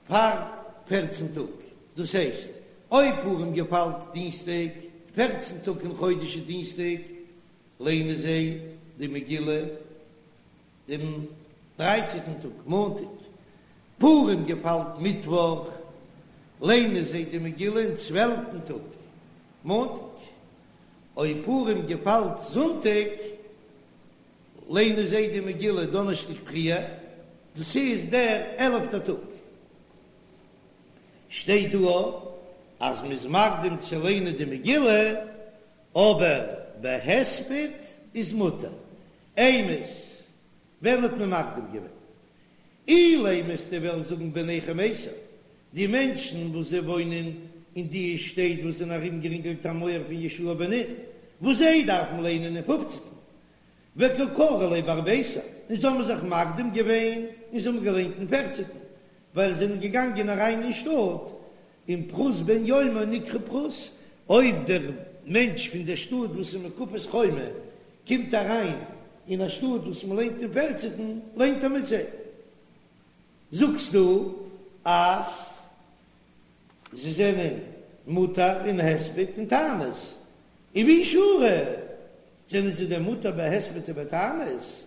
[SPEAKER 2] פאר פערצן טאג, דאס הייסט אויב פורים געפאלט דינסטאג, פערצן טאג אין חודש איז דינסטאג, ליינען זיי די מגילה דעם דרייצענטן טאג מאנטאג, פורים געפאלט מיטוואך, ליינען זיי די מגילה אין צוועלפטן טאג מאנטאג, אויב פורים געפאלט זונטאג, ליינען זיי די מגילה דאנערשטאג פריער, דאס איז דער עלפטער טאג. שטייט דא אז מ'איז מקדים צו ליינען די מגילה, אבער בהספד איז מותר. אימת, ווען האט מען מקדים געווען? אילימא וועסטו וועלן זאגן בני חמיסר, די מענטשן וואס זיי וואוינען אין די שטעט וואס זענען ארומגערינגלט א מויער פון יהושע בן נון, וואס זיי דארפן ליינען אין פופצנטן, וקא קרו ליה בארביסר, און זיי האבן זיך מקדים געווען און זיי האבן געליינט אין פערצנטן, ווייל זיי זענען געגאנגען אריין אין שטאט, און פחות בן יומו נקרא פחות, אויב דער מענטש פון דער שטאט וואס איז מוקפת חומה קומט אריין אין א שטאט וואס מען ליינט אין פערצנטן, ליינט ער מיט זיי. זאגסטו אז זיי זענען מותר אין הספד און תענית, און ווי שרי זענען זיי דען מותר בהספד ובתענית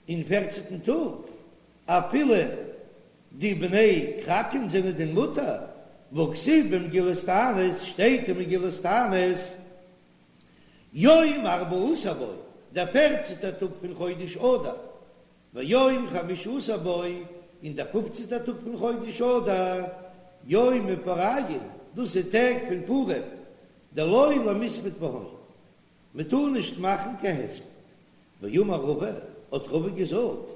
[SPEAKER 2] אין פערצנטן טאג, אפילו די בני כרכים זענען דען מותר, והכתיב במגילת תענית, שטייט אין מגילת תענית, יום ארבעה עשר בו, דער פערצנטער טאג פון חודש אדר, ויום חמשה עשר בו, און דער פופצנטער טאג פון חודש אדר, יומי פוריא, דאס איז טעג פון פורים, דלא למספד בהון, מען טאר נישט מאכן קיין הספד. ואמר רבא, האט רבא געזאגט,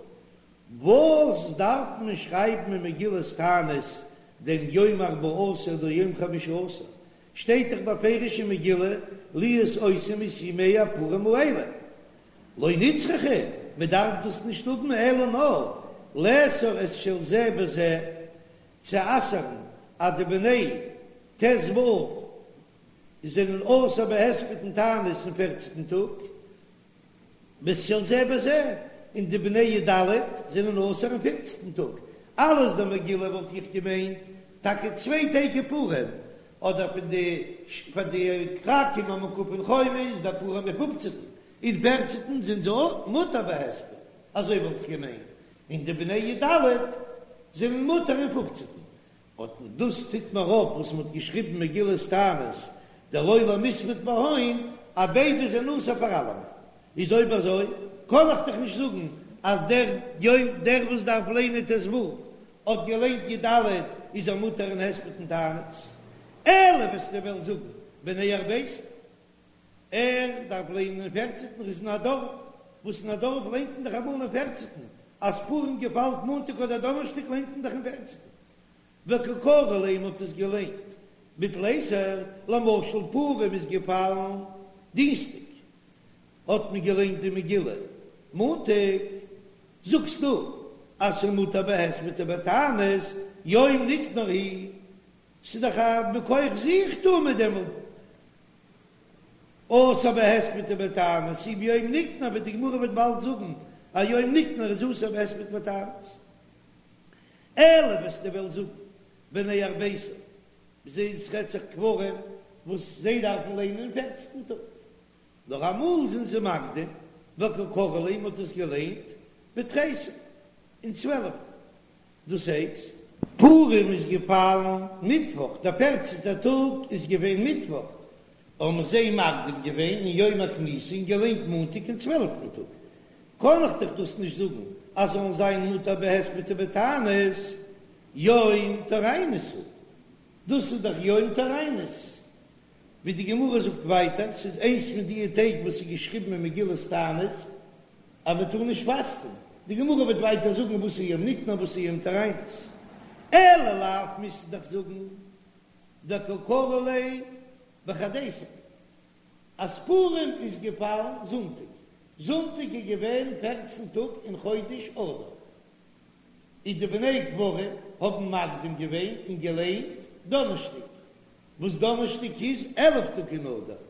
[SPEAKER 2] וואס דארף מען שרייבן אין מגילת תענית דעם יום ארבעה עשר אדער יום חמשה עשר, שטייט דאך בפירוש אין מגילה להיות עושים את ימי הפורים האלה, לא נצרכא, מען דארף דאס נישט האבן אלא נאר לאסור את של זה בזה, צו אסר'ן אז די בני ט"ו זענען אסור בהספד און תענית אין פערצנטן טאג, ואת של זה בזה, און די בני י"ד זענען אסור אין פופצנטן טאג, אלעס די מגילה וואלט איך געמיינט טאקע צוויי טעג אין פורים, אדער פון די פאר די כרכים המוקפין חומה איז דער פורים אין פופצנטן, אין פערצנטן זענען זיי אויך מותר בהספד, אזוי וואלט איך געמיינט, און די בני י"ד זענען מותר אין פופצנטן, אט דאס טוט מיר אויף וואס מ'האט געשריבן מגילת תענית דלא למספד בהון אז ביידע זענען אסור פאר אלעמען, איז אויב אזוי קען איך דאך נישט זאגן אז דער יום דער וואס דארף ליינען ט"ו האט געליינט י"ד איז ער מותר אין הספד און תענית, אלא וועסטו וועלן זאגן בני ארביסר ער דארף ליינען אין פערצענטן ער איז אין א דארף וואס אין א דארף ליינט מען דאך אמאל אין פערצענטן אז פורים געפאלט מאנטאג אדער דאנערשטאג ליינט מען דאך אין פערצענטן וקא קרו ליה מ'האט עס געליינט בתליסר למשל פורים איז געפאלן דינסטאג האט מען געליינט די מגילה מאנטאג זאגסטו אז ס'מותר בהספד ובתענית יום ניקנור הוא ס'איז דאך א מכח זיך טאר מען דעמאלט אסור בהספד ובתענית אי ביום ניקנור ווי די גמרא וועט באלד זאגן אז יום ניקנור איז אסור בהספד ובתענית אלא וועסטו וועלן זאגן בני ארביסר זיי ס'רעדט זיך כפרים וואס זיי דארפן ליינען אין פערצנטן טאג נאר אמאל זענען זיי מקדים וקא קרו ליה מ'האט עס געליינט בתריסר אין צוועלפטן דאס הייסט, פורים איז געפאלן מיטוואך, דער פערצנטער טאג איז געווען מיטוואך, האבן זיי מקדים געווען אין יום הכניסה און געליינט מאנטאג אין צוועלפטן טאג, קען איך דאך דאס נישט זאגן אז זאלן זיין מותר בהספד ובתענית, יום טוריינוס הוא, דאס איז דאך יום טוריינוס, ווי די גמרא זאגט ווייטער, ס'איז איינס פון די טעג וואס איז געשריבן אין מגילת תענית אז מען טאר נישט פאסטן, די גמרא וועט ווייטער זאגן וואס איז יום ניקנור וואס איז יום טוריינוס, אלא לאו מוזטו דאך זאגן דקא קרו ליה בחדיסר אז פורים איז געפאלן זונטאג, זונטאג איז געווען פערצן טאג אין חודש אדר, איז די בני כפרים האבן מקדים געווען און געליינט דאנערשטאג, וואס דאנערשטאג איז 11 טאג אין אדר,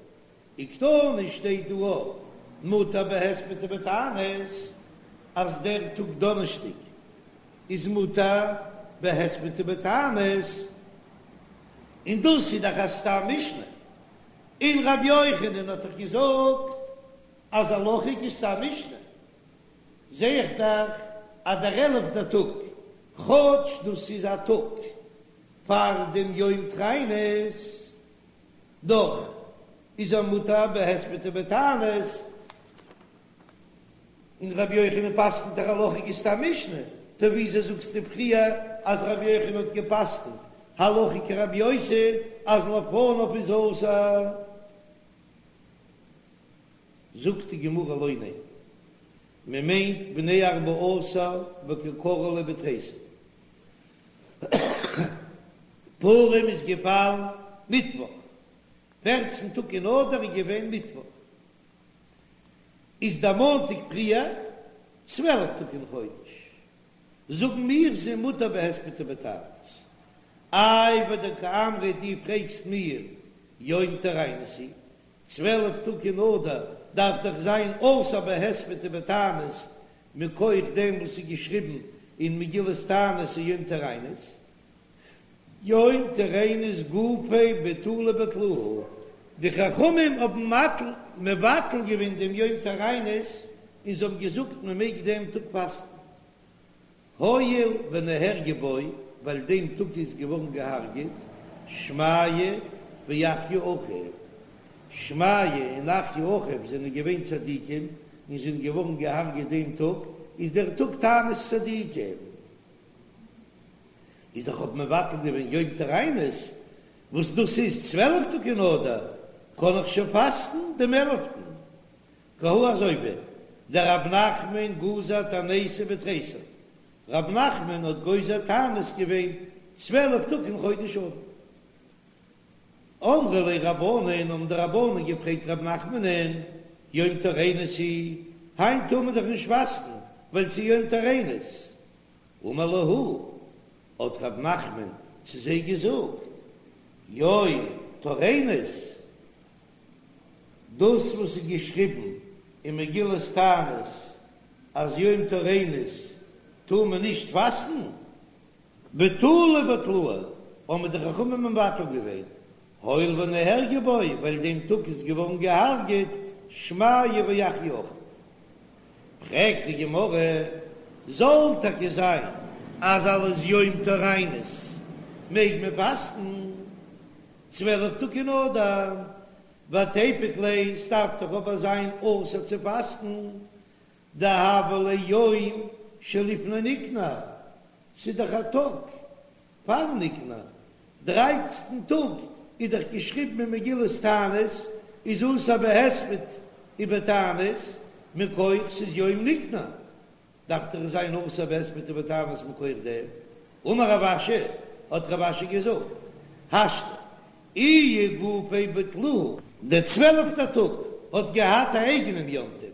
[SPEAKER 2] וקתני שטייט דא אויך. מותר בהספד ובתענית, אז דער טאג דאנערשטאג איז מותר בהספד ובתענית, און דאס איז דאך א סתם משנה, און רבי יוחנן האט דאך געזאגט אז הלכה כסתם משנה, זע איך דאך אז דער עלפטער טאג, כאטש דאס איז א טאג פאר דעם יום טריינות, דאך איז ער מותר בהספד ובתענית, און רבי יוחנן פסק'נט דאך הלכה כסתם משנה, טא וויאזוי זאגסטו פריער אז רבי יוחנן האט געפסק'נט הלכה כרבי יוסי אז לפניו איז אסור? זאגט די גמרא לא, ניין, מען מיינט בני ארבעה עשר וקא קרו ליה בתריסר. פורים איז געפאלן מיטוואך, פערצן טאג אין אדר איז געווען מיטוואך, איז דער מאנטאג פריער 12 טאג אין חודש, זאגן מיר ס'איז מותר בהספד ובתענית. איי ודקאמרת דו פרעגסט מיר יום טוריינוס הוא, 12 טאג אין אדר דארף דאך זיין אסור בהספד ובתענית מכח דעם וואס איז געשריבן אין מגילת תענית אין יום טוריינוס, יום טוריינוס גופיה בטולי בטלוהו, די חכמים האבן מבטל געווען דעם יום טוריינוס און זיי האבן געזאגט מען מעג דעם טאג פאסטן, הואיל ונהרגו בו, ווייל דעם טאג איז געווארן געהארגעט שמעיה ואחיה אחיו, שמעיה און אחיה אחיו זענען געווען צדיקים און זענען געווארן געהארגעט דעם טאג, איז דער טאג תענית צדיקים. איז איך האב מבטל געווען יום טוריינוס, וואס דאס איז 12 טאג אין אדר, קען איך שוין פאסטן דעם עלפטן. כי הא אזוי ווי דרב נחמן גזר תעניתא בתריסר, רב נחמן האט גוזר תענית געווען 12 טאג אין חודש אדר. אמרו ליה רבנן, האבן די רבנן געפרעגט רב נחמנ'ן, יום טוריינוס הוא, היינט טאר מען דאך נישט פאסטן ווייל ס'איז יום טוריינוס. אמר להו, האט רב נחמן צו זיי געזאגט, יום טוריינוס, דאס וואס איז געשריבן אין מגילת תענית אז יום טוריינוס טאר מען נישט פאסטן, בטולי בטלוהו, האבן די חכמים מבטל געווען, הואיל ונהרגו בו, ווייל דעם טאג איז געווארן געהארגעט שמעיה ואחיה אחיו. פרעגט די גמרא, זאל טאקע זיין אז אלס יום טוריינוס מעג מען פאסטן 12 טאג אין אדר, ותיפוק ליה, ס'דארף דאך אבער זיין אסור צו פאסטן, דהוה ליה יום שלפני ניקנור, ס'איז דאך א טאג פאר ניקנור, דרייצטן טאג איז דאך געשריבן אין מגילת תענית איז אסור בהספד ובתענית מכח ס'איז יום ניקנור, דארף דאך זיין אסור בהספד ובתענית מכח דעם. אמר רב אשי, האט רב אשי געזאגט, השתא איהו גופיה בטלוהו, דער צוועלפטער טאג האט געהאט א אייגענעם יום טוב,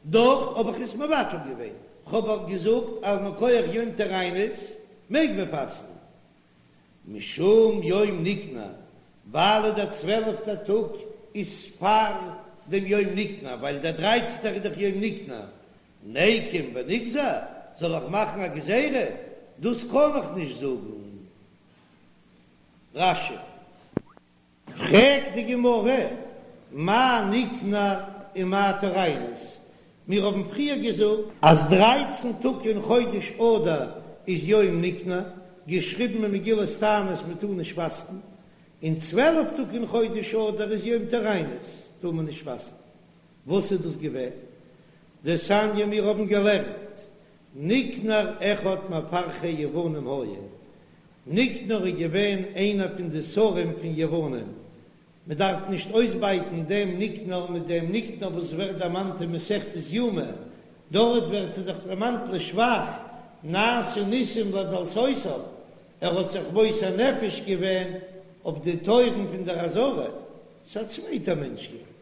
[SPEAKER 2] דאך האב איך עס מבטל געווען, כ'האב אויך געזאגט אז מכח יום טוריינוס מעג מען פאסטן, משום יום ניקנור, ווייל דער צוועלפטער טאג איז פאר דעם יום ניקנור, ווייל דער דרייצנטער איז דאך יום ניקנור, ניקום ונגזור, זאל איך מאכן א גזירה? דאס קען איך נישט זאגן. רש"י. פרעגט די גמרא, מאי ניקנור ומאי טוריינוס? מיר האבן פריער געזאגט אז דרייצן טאג אין חודש אדר איז יום ניקנור, געשריבן אין מגילת תענית מען טאר נישט פאסטן, און 12 טאג אין חודש אדר איז יום טוריינוס, טאר מען נישט פאסטן. וואס איז דאס געווען? דתניא מיר האבן געלערנט, ניקנור אחד מפרחי יוונים היה, ניקנור איז געווען איינער פון די שרים פון יוונים, מען דארף נישט אויסבייטן דעם ניקנור מיט דעם ניקנור וואס ווערט דערמאנט אין מסכת יומא, דארט ווערט ער דאך דערמאנט לשבח, נעשו ניסים לדלתותיו, ער האט זיך מוסר נפש געווען אויף די טויערן פון דער עזרה, ס'איז א צווייטער מענטש געווען.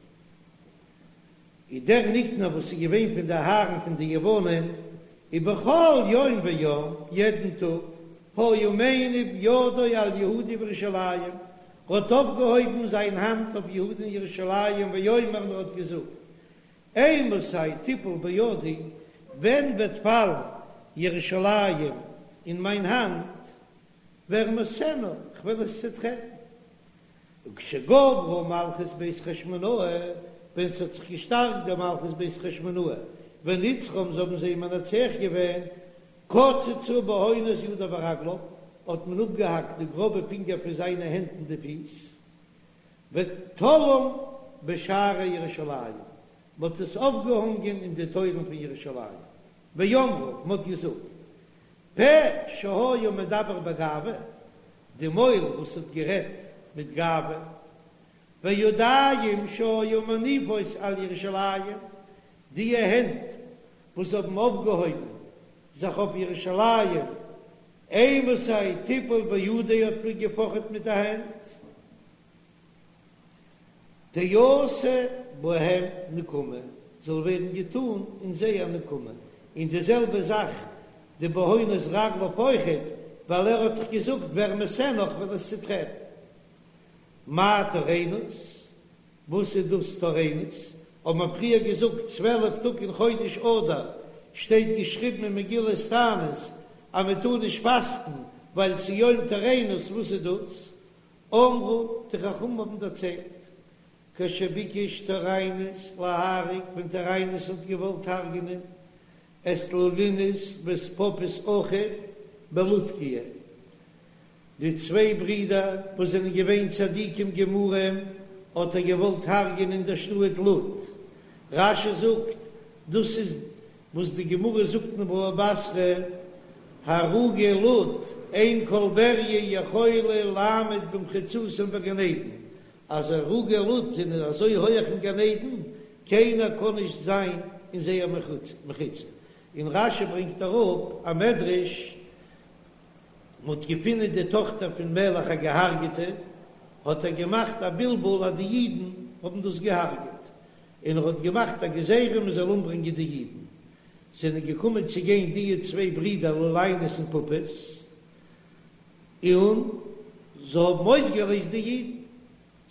[SPEAKER 2] איז דער ניקנור וואס איז געווען פון די הארן פון די יוונים, ובכל יום ויום, יעדן טאג, היה מניף ידו על יהודה וירושלים, ער האט אויפגעהויבן זיין האנט אויף יהודה און ירושלים ויאמר און ער האט געזאגט, אימתי תיפול בידי, ווען וועט פאלן ירושלים אין מיין האנט, וארמסנה, כ'וועל עס צעטרעטן. וכשגברה מלכות בית חשמונאי, ווען ס'האט זיך געשטארקט די מלכות בית חשמונאי, ונצחום זיי האבן זיי מנצח געווען, קצצו בהונות ידיו ורגליו, האט מען אפגעהאקט די גראבע פינגער פון זיינע הענט און די פיס, ותלאום בשערי ירושלים, מ'האט עס אויפגעהאנגען אין די טויערן פון ירושלים, ואמרו, מ'האט געזאגט, פה שהיה מדבר בגאווה, די מויל וואס האט גערעדט מיט גאווה, וידיים שהיו מניפות על ירושלים, די הענט וואס האבן אויפגעהויבן זיך אויף ירושלים, אימתי תיפול בידי האט מען געפאכעט מיט די הענט, תעשה בהם נקמה, זאל ווערן געטאן אין זיי א נקמה, און די זעלבע זאך די בהונות רגליו אויכעט, ווייל ער האט דאך געזאגט וארמסנה איך וועל עס צוטרעטן. מאי טוריינוס? וואס איז דאס טוריינוס? האט מען פריער געזאגט 12 טאג אין חודש אדר שטייט געשריבן אין מגילת תענית אז מען טאר נישט פאסטן ווייל ס'איז יום טוריינוס, וואס איז דאס? אמרו, די חכמים האבן דערציילט, כשביקש טוריינוס להרוג, ווען טוריינוס האט געוואלט הרג'נען את לולינוס ואת פפוס אחיו בלודקיא, די צוויי ברידער וואס זענען געווען צדיקים גמורים, האט ער געוואלט הרג'ענען אין דער שטאט לוד. רש"י זאגט, דאס איז וואס די גמרא זאגט אין בבא בתרא, הרוגי לוד, אין כל בריה יכולה לעמוד במחיצתם בגן עדן, אז הרוגי לוד זענען אזוי הויעך אין גן עדן, קיינער קען נישט זיין אין זייער מחיצה. און רש"י ברענגט אראפ א מדרש, מ'האט געפינען די טאכטער פון מלך א געהארגעטע, האט ער געמאכט א בלבול אז די אידן האבן דאס געהארגעט, און ער האט געמאכט א גזירה מען זאל אומברענגען די אידן. זענען געקומען צו גיין דיע צוויי ברידער לוליינוס און פפוס, און זיי האבן אויסגעלייזט די אידן,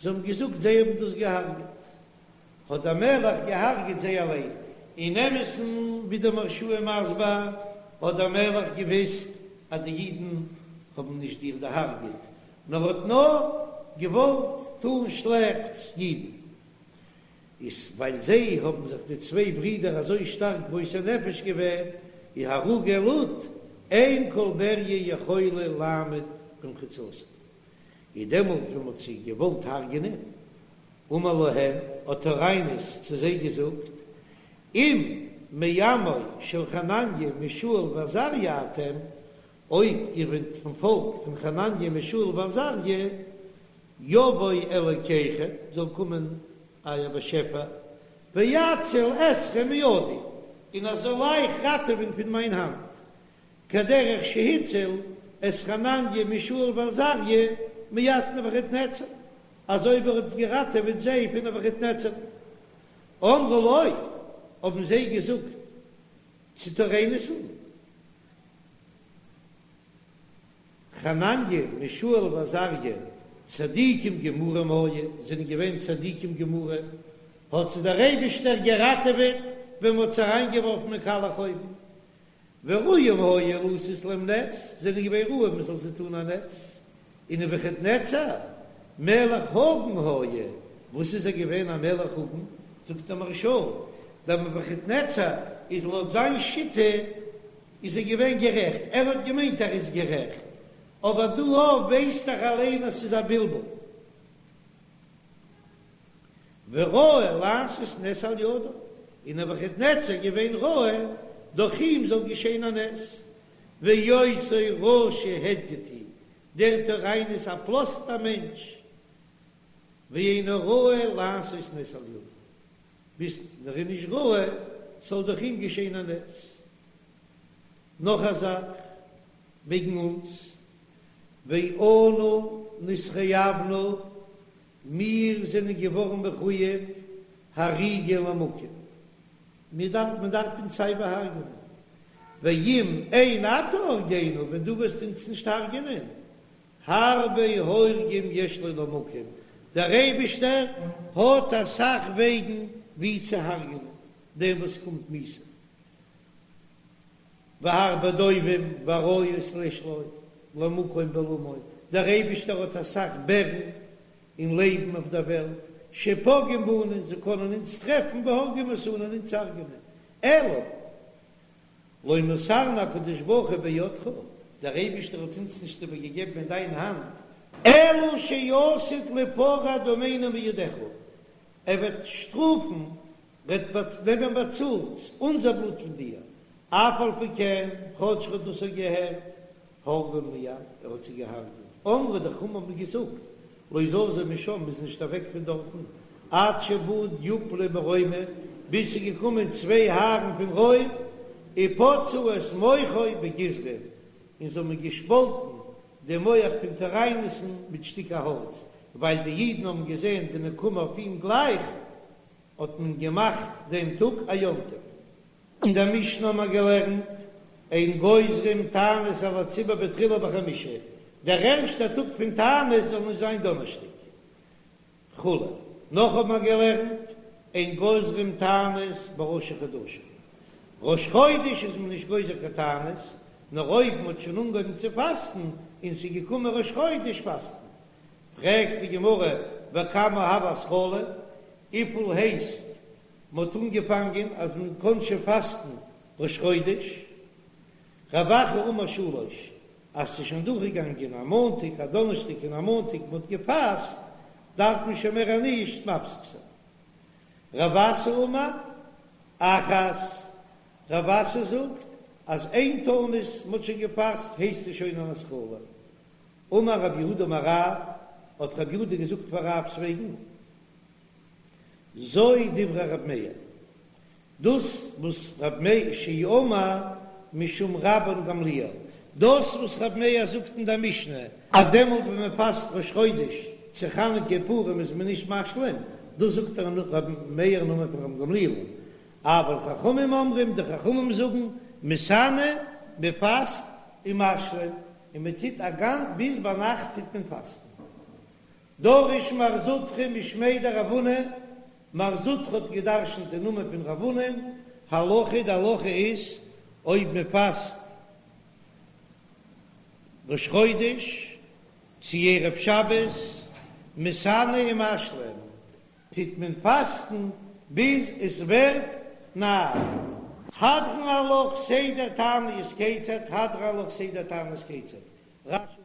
[SPEAKER 2] זיי האבן געזאגט זיי האבן דאס געהארגעט, האט דער מלך געהארגעט זיי אליין. אין אמת'ן, ווי דער מהרש"א איז מסביר, האט דער מלך געוויסט אז די אידן האבן נישט איר דערהארגעט, נאר האט נאר געוואלט טון שלעכטס אידן. איז ווייל זיי האבן זיך די צוויי ברידער אזוי שטארק מוסר נפש געווען, איז הרוגי לוד, אין כל בריה יכולה לעמוד במחיצתם. איז דעמאלט ווען מ'האט זיי געוואלט הרג'נען, אמר להם, האט טוריינוס צו זיי געזאגט, אם מעמו של חנניה מישאל ועזריה אתם, אויב איר זענט פון פאלק פון חנניה מישאל ועזריה, יבוא אלוקיכם, זאל קומען אייער באשעפער, ויציל אתכם מידי, און ער זאל אייך ראטעווען פון מיין האנט, כדרך שהציל את חנניה מישאל ועזריה מיד נבוכדנצר, אזוי ווי ער האט געראטעוועט זיי פון נבוכדנצר. אמרו לו, האבן זיי געזאגט צו טוריינוס'ן, חנניה מישאל ועזריה צדיקים גמורים היו, זענען געווען צדיקים גמורים, האט זיי דער אייבישטער געראטעוועט ווען מען האט זיי אריינגעווארפן אין קאלעך אויוון, וראויים היו לעשות להם נס, זענען געווען ראוי מען זאל זיי טון א נס, און נבוכדנצר מלך הגון היה, וואס איז ער געווען א מלך הגון? זאגט דער מהרש"א, דער נבוכדנצר איז לויט זיין שיטה איז ער געווען גערעכט, ער האט געמיינט ער איז גערעכט, אבער דא ווייסט דאך אליין אז ס'איז א בלבול. וראוי לעשות נס על ידו, און נבוכדנצר געווען ראוי דורך אים זאל געשען א נס, ואותו רשע הדיוט הוא, דער טוריינוס א פראסטער מענטש, ואינו ראוי לעשות נס על ידו, ביז ער איז נישט ראוי ס'זאל דורך אים געשען א נס. נאך א זאך וועגן אונז, ואנו נתחייבנו, מיר זענען געווארן מחוייב הריגה למקום, מיר דארף מען דארף אונז סייווי הרג'נען, ואם אין אתה הורגנו, ווען דו וועסט אונז נישט הרג'נען, הרבה הורגים יש לו למקום, דער אייבישטער האט אסאך וועגן ווי צו הרג'נען. דעם וואס קומט מיתה. והרבה דובים ואריות יש לו למקום בעולמו, דער אייבישטער האט אסאך בערן און לייבן אויף דער וועלט, שפוגעים בנו, זיי קענען אונז טרעפן והורגים אותנו און אונז הרג'נען, אלא לא מסרנו הקדוש ברוך הוא בידך, דער אייבישטער האט אונז נישט איבערגעגעבן אין דיין האנט, אלא שעתיד ליפרע דמינו מידך, ער וועט שטראפן וועט נעמען באצאלט אונזער בלוט פון דיר, אף על פי כן, כאטש ער האט דאס געהערט, הרגן מיד, ער האט זיי געהארגעט, אמרו די חכמים האבן געזאגט, לא זזו משם, מ'איז נישט אוועק פון דארטן, עד שבא דיופלי מרומא, ביז ס'איז געקומען צוויי הארן פון רוים, ופצעו את מוחו בגיזרין, און זיי האבן געשפאלטן די מח פון טוריינוס'ן מיט שטיקער האלץ, ווייל די אידן האבן געזען די נקמה אויף אים גלייך, האט מען געמאכט דעם טאג א יום טוב. אין דער משנה האט מען געלערנט, אין גוזרים תענית על הציבור בתחילה בחמישי, דער ערשטער טאג פון תענית זאל נישט זיין דאנערשטאג וכו'. נאך האט מען געלערנט, אין גוזרים תענית בראשי חדשים, ראש חודש איז מען נישט גוזר קיין תענית, נאר אויב מען האט שוין אנגעהויבן צו פאסטן און ס'איז געקומען ראש חודש פאסט מען. פרעגט די גמרא, וכמה הוי התחלה, וויפיל הייסט מ'האט אנגעפאנגען אז מען קען שוין פאסטן ראש חודש? רב אחא אמר שלש, אז ס'איז שוין דורכגעגאנגען א מאנטאג, א דאנערשטאג און א מאנטאג מ'האט געפאסט, דארף מען שוין מער נישט מפסיק זיין. רב אסי אמר אחת, רב אסי זאגט אז איין תענית מ'האט שוין געפאסט הייסט עס שוין אן התחלה. אמר רב יהודה אמר רב, האט רב יהודה געזאגט פאר רב'ס וועגן, זו דברי רב מאיר, דאס וואס רב מאיר שאמר משום רבן גמליאל, דאס וואס רב מאיר זאגט אין דער משנה, אז דעמאלט ווען מען פאסט ראש חודש צו חנוכה פורים איז מען נישט משלים, דאס זאגט רב מאיר אין נאמען פון רבן גמליאל, אבל חכמים אומרים, די חכמים זאגן, מתענה, מען פאסט ומשלים, און מען טוט א גאנ ביז ביינאכט טוט מען פאסטן. דרש מר זוטרא משמיה דרב הונא, מר זוטרא האט געדרשנט אין נאמען פון רב הונא, הלכה די הלכה איז אויב מען פאסט ראש חודש צו ערב שבת מתענה ומשלים, טוט מען פאסטן ביז עס ווערט נאכט. הדרן עלך סדר תעניות כיצד, הדרן עלך סדר תענית כיצד, רש"י.